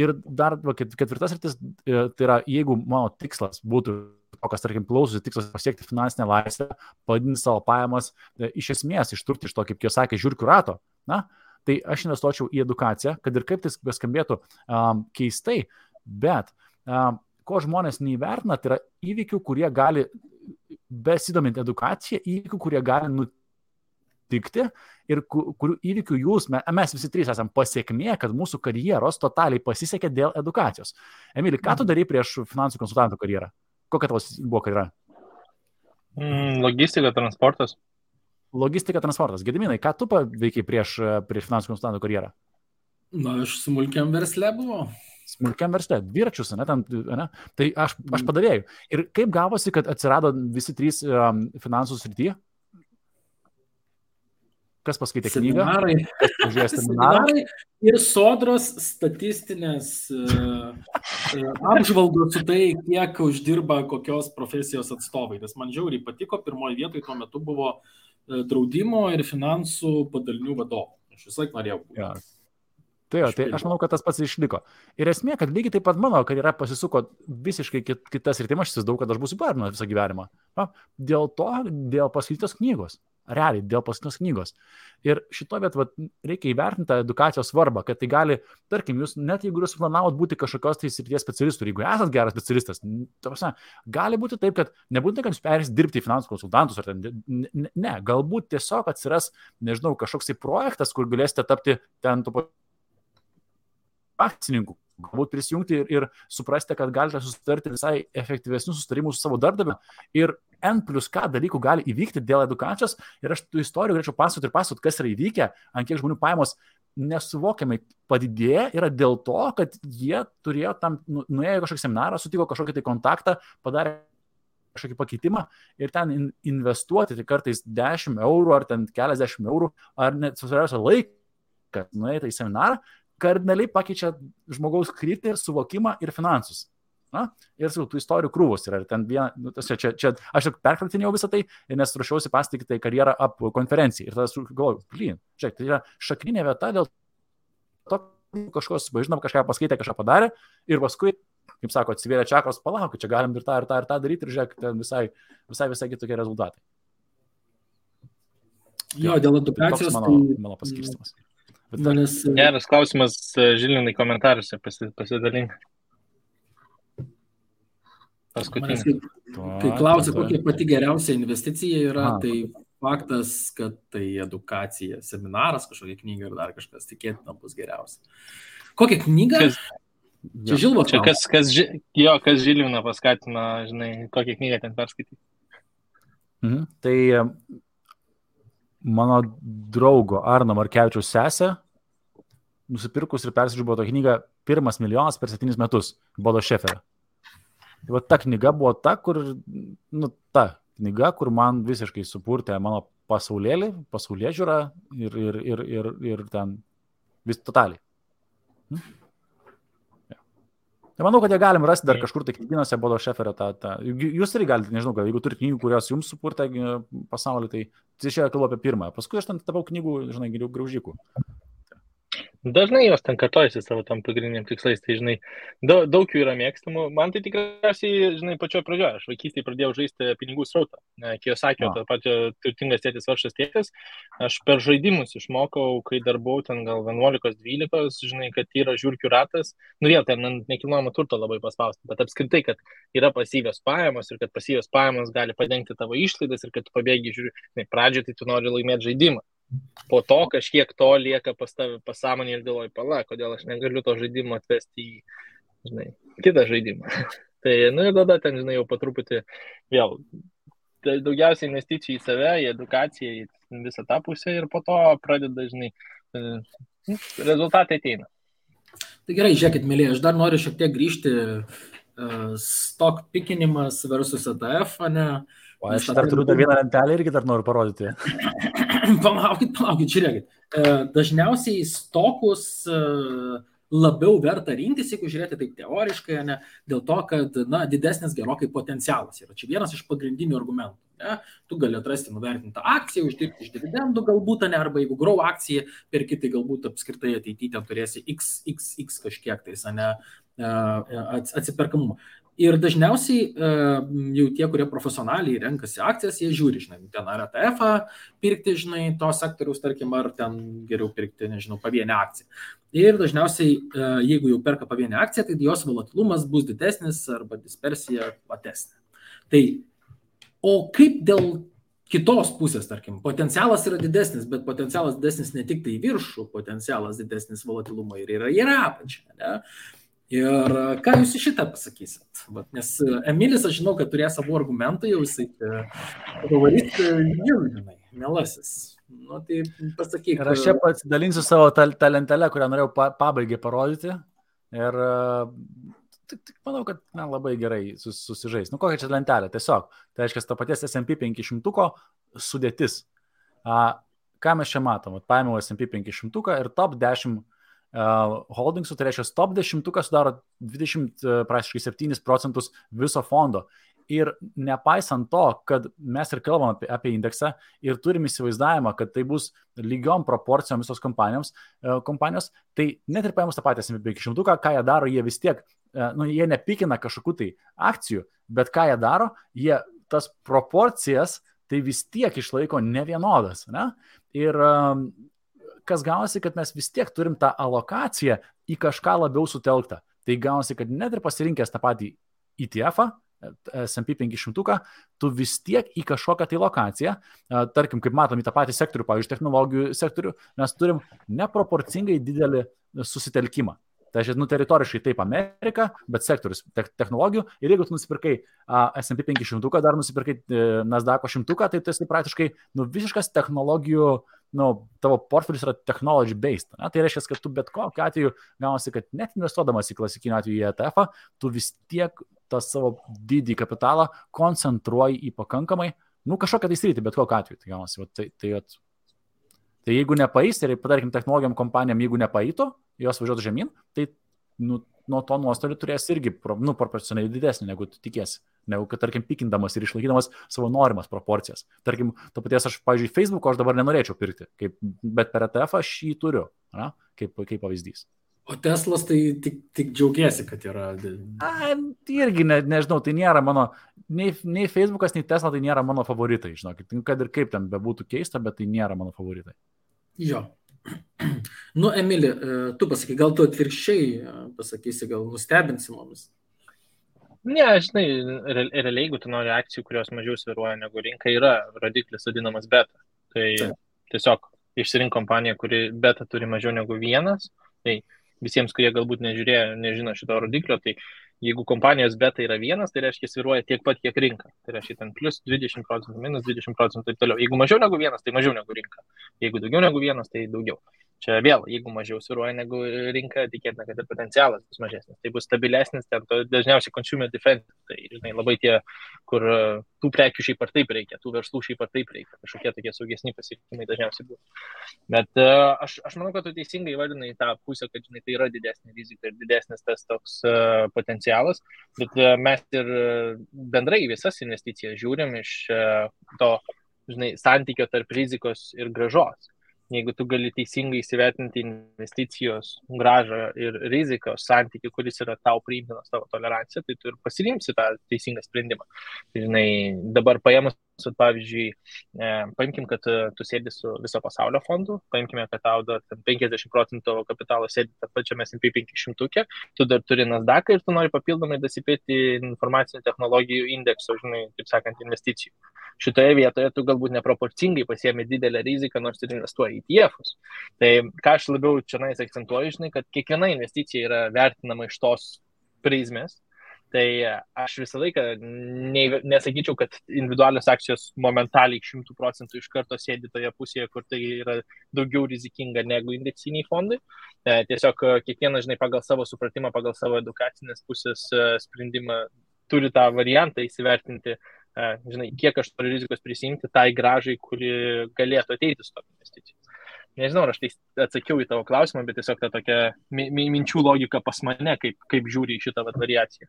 Ir dar ketvirtas rytis, tai yra, jeigu mano tikslas būtų, kas, tarkim, klausosi tikslas pasiekti finansinę laisvę, padidinti savo pajamas, iš esmės ištrūkti iš to, kaip jie sakė, žiūrkių rato, tai aš investuočiau į edukaciją, kad ir kaip tai beskambėtų keistai, bet ko žmonės neįvertina, tai yra įvykių, kurie gali, besidomint edukaciją, įvykių, kurie gali nutikti ir kurių įvykių mes visi trys esam pasiekmė, kad mūsų karjeros totaliai pasisekė dėl edukacijos. Emili, ką tu darai prieš finansų konsultantų karjerą? Kokia tavo buvo karjera? Logistika, transportas. Logistika, transportas. Gediminai, ką tu veikiai prieš finansų konsultantų karjerą? Aš smulkiam versle buvau. Smulkiam versle, dviračius, ne? Tai aš padavėjau. Ir kaip gavosi, kad atsirado visi trys finansų srityje? Kas paskaitė knygą? Seminarai ir sodros statistinės apžvalgos su tai, kiek uždirba kokios profesijos atstovai. Nes man žiauriai patiko, pirmoje vietoje tuo metu buvo draudimo ir finansų padalinių vadovų. Aš visą laiką norėjau būti. Ja. Tai aš manau, kad tas pats išliko. Ir esmė, kad lygiai taip pat mano karjera pasisuko visiškai kitas rytim, aš įsivaizduoju, kad aš būsiu barnas visą gyvenimą. Dėl paskaitytos knygos. Realiai, dėl paskaitytos knygos. Ir šito vietą reikia įvertinti tą edukacijos svarbą, kad tai gali, tarkim, jūs net jeigu jūs planavot būti kažkokios tai srities specialistų, jeigu esat geras specialistas, gali būti taip, kad nebūtinai, kad jūs perėsite dirbti į finansų konsultantus, ar ne, galbūt tiesiog atsiras, nežinau, kažkoks tai projektas, kur galėsite tapti ten akcininkų, galbūt prisijungti ir suprasti, kad galite susitarti visai efektyvesnius susitarimus su savo darbdaviu ir N+K dalykų gali įvykti dėl edukacijos ir aš tų istorijų galėčiau pasakoti, kas yra įvykę, ant kiek žmonių pajamos nesuvokiamai padidėja yra dėl to, kad jie turėjo tam, nuėjo kažkokį seminarą, sutiko kažkokį tai kontaktą, padarė kažkokį pakeitimą ir ten investuoti tai kartais 10 eurų ar ten keliasdešimt eurų ar net susirausia laiką nuėti į seminarą, kardinaliai pakeičia žmogaus kryptį ir suvokimą ir finansus. Na? Ir tų istorijų krūvos yra. Ir ten viena, čia aš perkratinėjau visą tai, nes ruošiausi pasitikti tai karjerą ap konferencijai. Ir tada galvoju, žiūrėk, tai yra šakninė vieta dėl to, kažkas, žinom, kažką paskaitė, kažką padarė ir paskui, kaip sako, atsivėrė čakros, palauk, čia galim ir tą daryti ir žiūrėk, ten visai kitokie rezultatai. Jo, dėl edukacijos. Mano paskirstimas. Geras klausimas, Žilinai, komentaruose pasidalink. Paskutinį. Kai klausia, kokia pati geriausia investicija yra, tai faktas, kad tai edukacija, seminaras, kažkokia knyga ir dar kažkas, tikėtina bus geriausia. Kokią knygą? Čia Žilvos. Kas Žiliną paskatino, žinai, kokią knygą ten perskaityti? Tai mano draugo Arno Markevičiaus sesė nusipirkus ir persižiūrėjo tą knygą Pirmas milijonas per 7 metus Bodo Šeferio. Tai ta knyga buvo ta knyga, kur man visiškai supurtė mano pasaulėžiūrą ir ten vis totaliai. Tai manau, kad jie galim rasti dar kažkur tai knygynose Bodo Šeferio Jūs irgi galite, nežinau, jeigu turite knygų, kurios jums supurtė pasaulį, tai čia kalbu apie pirmąją. Paskui aš ten tapau knygų, žinai, graužikų. Dažnai jos ten kartojasi savo tam pagrindiniam tikslais, tai žinai, daug jų yra mėgstamų. Man tai tikriausiai, žinai, pačioje pradžioje, aš vaikystėje pradėjau žaisti pinigų srautą. Kiyosakio, tas pačio turtingas tėtis, vargšas tėtis. Aš per žaidimus išmokau, kai dar buvau ten gal 11-12, žinai, kad yra žiūrkių ratas. Vėl ten nekilnojamo turto labai paspausti, bet apskritai, kad yra pasyvios pajamos ir kad pasyvios pajamos gali padengti tavo išlaidas ir kad tu pabėgi, žiūri, pradžioje tai tu nori laimėti žaidimą. Po to kažkiek to lieka pas tave pasąmonė ir galvoji, kodėl aš negaliu to žaidimo atvesti į, žinai, kitą žaidimą. Tai, ir tada ten, žinai, jau po truputį vėl daugiausiai investicijų į save, į edukaciją, į visą tą pusę ir po to pradeda, žinai, rezultatai ateina. Tai gerai, žiūrėkit, mėlyje, aš dar noriu šiek tiek grįžti stock pikinimas versus ETF, ne? O aš dar turiu dar vieną lentelę irgi dar noriu parodyti. Palaukit, žiūrėkit. Dažniausiai stokus labiau verta rinktis, jeigu žiūrėti taip teoriškai, ne, dėl to, kad didesnis gerokai potencialas yra. Čia vienas iš pagrindinių argumentų. Ne? Tu gali atrasti nuvertintą akciją, uždirbti iš dividendų galbūt, ne, arba jeigu grow akciją, perki, tai galbūt apskritai ateityje turėsi x kažkiek tais, ne, atsiperkamumą. Ir dažniausiai jau tie, kurie profesionaliai renkasi akcijas, jie žiūri, žinai, ten ar ETF-ą pirkti, žinai, to sektoriaus, tarkim, ar ten geriau pirkti, nežinau, pavienę akciją. Ir dažniausiai, jeigu jau perka pavienę akciją, tai jos volatilumas bus didesnis arba dispersija platesnė. Tai, o kaip dėl kitos pusės, tarkim, potencialas yra didesnis, bet potencialas didesnis ne tik tai viršų, potencialas didesnis volatilumo ir yra apačia, ne? Ir ką jūs į šitą pasakysit? Nes Emilis, aš žinau, kad turės savo argumentų, jau jisai pavarys, žinai, mielasis. Nu, tai pasakyk. Ir aš čia pasidalinsiu savo tą lentelę, kurią norėjau pabaigai parodyti. Ir tik manau, kad labai gerai susižais. Nu, kokia čia lentelė? Tiesiog. Tai reiškia, to paties S&P 500 sudėtis. Ką mes čia matom? Paėmiau S&P 500 ir top 10 holdingsų, tai reiškia, top 10 sudaro 27% viso fondo. Ir nepaisant to, kad mes ir kalbam apie indeksą ir turim įsivaizdavimą, kad tai bus lygiom proporcijom visos kompanijos, tai net ir paėmus tą patį S&P 500, ką jie daro, jie vis tiek, jie nepikina kažkokių tai akcijų, bet ką jie daro, jie tas proporcijas tai vis tiek išlaiko nevienodas. Ne? Ir kas gaunasi, kad mes vis tiek turim tą alokaciją į kažką labiau sutelktą. Tai gaunasi, kad net ir pasirinkęs tą patį ETF-ą, S&P 500, tu vis tiek į kažkokią tai lokaciją, tarkim, kaip matom, į tą patį sektorių, pavyzdžiui, technologijų sektorių, mes turim neproporcingai didelį susitelkimą. Tai aš, teritoriškai taip Amerika, bet sektorius technologijų. Ir jeigu tu nusipirkai S&P 500, dar nusipirkai Nasdaq'o 100, tai tu esi praktiškai visiškas technologijų, tavo portfelis yra technology based. Ne? Tai reiškia, kad tu bet kokiu atveju gaunasi, kad net investuodamas į klasikinį atveju į ETF-ą, tu vis tiek tą savo didį kapitalą koncentruoji į pakankamai, kažkokią tai sritį, bet kokiu atveju. Tai gaunasi, tai jeigu nepaeis, ir padarkim technologijom kompanijom, jeigu nepaeito, jos važiuotų žemyn, tai nuo to nuostolių turės irgi proporcionaliai didesnį, negu tu tikėsi. Negu kad, tarkim, pikindamas ir išlaikydamas savo norimas proporcijas. Tarkim, to paties aš, pavyzdžiui, Facebook'o aš dabar nenorėčiau pirkti, bet per ETF aš jį turiu, kaip pavyzdys. O Teslas tai tik džiaugiasi, kad yra. Irgi nežinau, tai nėra mano, nei Facebook'as, nei Tesla tai nėra mano favoritai, žinokit, kad ir kaip ten bebūtų keista, bet tai nėra mano favoritai. Jo. Nu, Emili, tu pasakai, gal tu atvirkščiai pasakysi, gal nustebinsi mumis? Ne, žinai, realiai, jeigu tu nori akcijų, kurios mažiau sviruoja negu rinka, yra rodiklis vadinamas beta. Tai tiesiog išsirink kompaniją, kuri beta turi mažiau negu 1. Tai visiems, kurie galbūt nežino šito rodiklio, tai jeigu kompanijos beta yra 1, tai reiškia sviruoja tiek pat, kiek rinka. Tai reiškia ten plus 20%, minus 20% ir toliau. Jeigu mažiau negu 1, tai mažiau negu rinka. Jeigu daugiau negu 1, tai daugiau. Čia vėl, jeigu mažiau sviruoja negu rinka, tikėtina, kad ir potencialas bus mažesnis. Tai bus stabilesnis, ten dažniausiai consumer defense. Tai, žinai, labai tie, kur tų prekių šiaip ar taip reikia, tų verslų šiaip ar taip reikia. Kažkokie tokie saugesni pasirinkimai dažniausiai bus. Bet aš manau, kad tu teisingai įvardinai tą pusę, kad, žinai, tai yra didesnė rizika ir didesnis tas toks potencialas. Bet mes ir bendrai visas investicijas žiūrim iš to, žinai, santykio tarp rizikos ir grąžos. Jeigu tu gali teisingai įsivertinti investicijos grąžą ir rizikos santykį, kuris yra tau priimtinas, tavo tolerancija, tai tu ir pasirinksi tą teisingą sprendimą. Tai, žinai, dabar paėmus, pavyzdžiui, paimkim, kad tu sėdi su viso pasaulio fondu, paimkime, kad tau dar 50% tavo kapitalo sėdi tą pačiame S&P 500, tu dar turi Nasdaq ir tu nori papildomai dasipėti informacinių technologijų indekso, žinai, taip sakant, investicijų. Šitoje vietoje tu galbūt neproporcingai pasiemi didelę riziką, nors ir investuoji į ETF-us. Tai ką aš labiau čia akcentuoju, žinai, kad kiekviena investicija yra vertinama iš tos prizmės. Tai aš visą laiką nesakyčiau, kad individualios akcijos momentaliai 100% iš karto sėdi toje pusėje, kur tai yra daugiau rizikinga negu indeksiniai fondai. Tiesiog kiekvienas, žinai, pagal savo supratimą, pagal savo edukacinės pusės sprendimą turi tą variantą įsivertinti, žinai, kiek aš turiu rizikos prisimti tai grąžai, kuri galėtų ateiti su tom investicijom. Nežinau, ar aš tai atsakiau į tavo klausimą, bet tiesiog ta tokia minčių logika pas mane, kaip žiūri į šitą variaciją.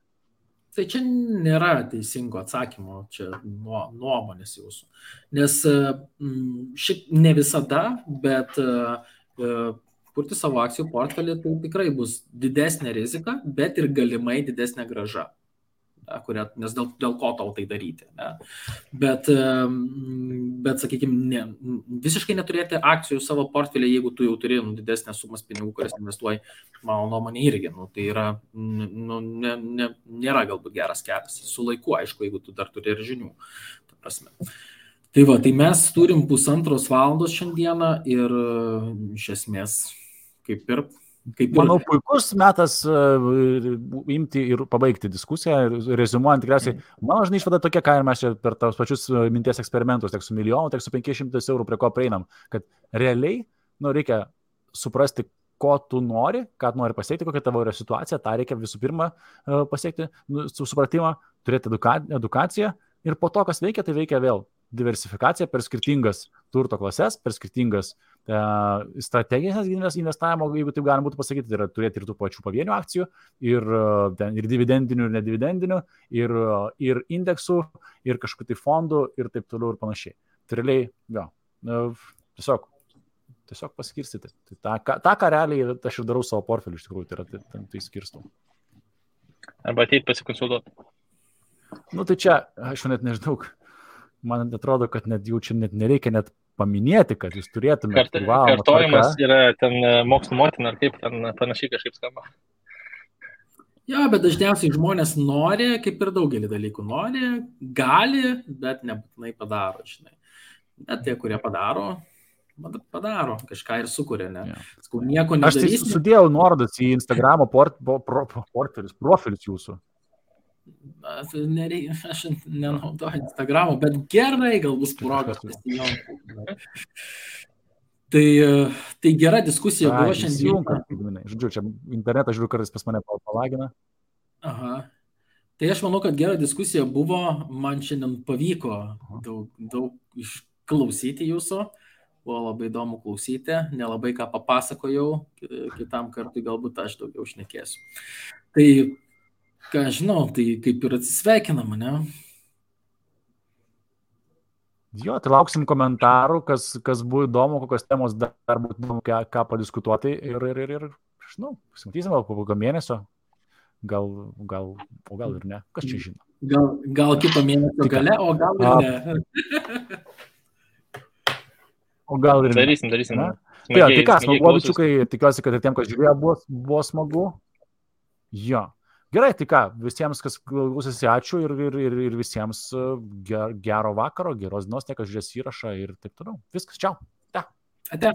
Tai čia nėra teisingo atsakymo, čia nuomonės jūsų. Nes šiaip ne visada, bet kurti savo akcijų portfelį tai tikrai bus didesnė rizika, bet ir galimai didesnė grąža. Nes dėl ko tau tai daryti. Ne? Bet sakykime, visiškai neturėti akcijų savo portfelį, jeigu tu jau turi didesnės sumas pinigų, kurias investuoji, mano nuomonė irgi. Tai yra, nėra galbūt geras kelias. Su laiku, aišku, jeigu tu dar turi ir žinių. Tai va, tai mes turim 1,5 valandos šiandieną ir iš esmės kaip ir Manau, puikus metas imti ir pabaigti diskusiją, rezumuojant tikriausiai, mano žinai išvada tokia, ką ir mes čia per tos pačius minties eksperimentus, tiek su milijonu, tiek su 500 eurų, prie ko prieinam, kad realiai reikia suprasti, ko tu nori, ką tu nori pasiekti, kokia tavo yra situacija, tą reikia visų pirma pasiekti, supratimą, turėti edukaciją ir po to, kas veikia, tai veikia vėl diversifikacija per skirtingas turto klases, per skirtingas strateginės investavimo, jeigu taip galima būtų pasakyti, tai yra turėti ir tų pačių pavienių akcijų, ir dividendinių, ir nedividendinių, ir indeksų, ir kažkokių tai fondų, ir taip toliau ir panašiai. Tai realiai, tiesiog paskirstyti. Tai tą, ką realiai aš ir darau savo portfelį, iš tikrųjų, tai skirstau. Arba ateit pasikonsultuoti. Tai čia, aš net nežinau, man atrodo, kad net jau čia net nereikia net paminėti, kad jūs turėtumėte kartojimas yra ten mokslo motina, ar kaip ten panašiai kažkaip skamba. Jo, bet dažniausiai žmonės nori, kaip ir daugelį dalykų nori, gali, bet nebūtinai padaro, žinai. Bet tie, kurie padaro, kažką ir sukuria, ne? Skau, nieko nedarys. Aš tai sudėjau nuorodas į Instagramo profilius jūsų. Aš nenaudoju Instagramo, bet gerai, gal bus progas pasijungti. Tai gera diskusija buvo šiandien. Žodžiu, čia internetą žiūriu, kartais pas mane palagina. Aha. Tai aš manau, kad gera diskusija buvo, man šiandien pavyko daug išklausyti jūsų, buvo labai įdomu klausyti, nelabai ką papasakojau, kitam kartui galbūt aš daugiau šnekėsiu. Tai, ką žinau, tai kaip ir atsisveikinam, ne? Jo, tai lauksim komentarų, kas buvo įdomu, kokios temos dar būtų įdomu, ką padiskutuoti ir žinau, pasimatysim po kokio mėnesio, gal ir ne, kas čia žino. Gal kito mėnesio gale, o gal ir ne. O gal ir ne. Darysim. Tai ką, smagu, bičiukai, tikiuosi, kad ir tiem, kas žiūrėjo, buvo smagu. Jo. Gerai, tai ką, visiems, kas klausėsi, ačiū ir visiems gero vakaro, geros dienos, tie, kas žiūrės įrašą ir taip toliau. Viskas, čiau. Ate.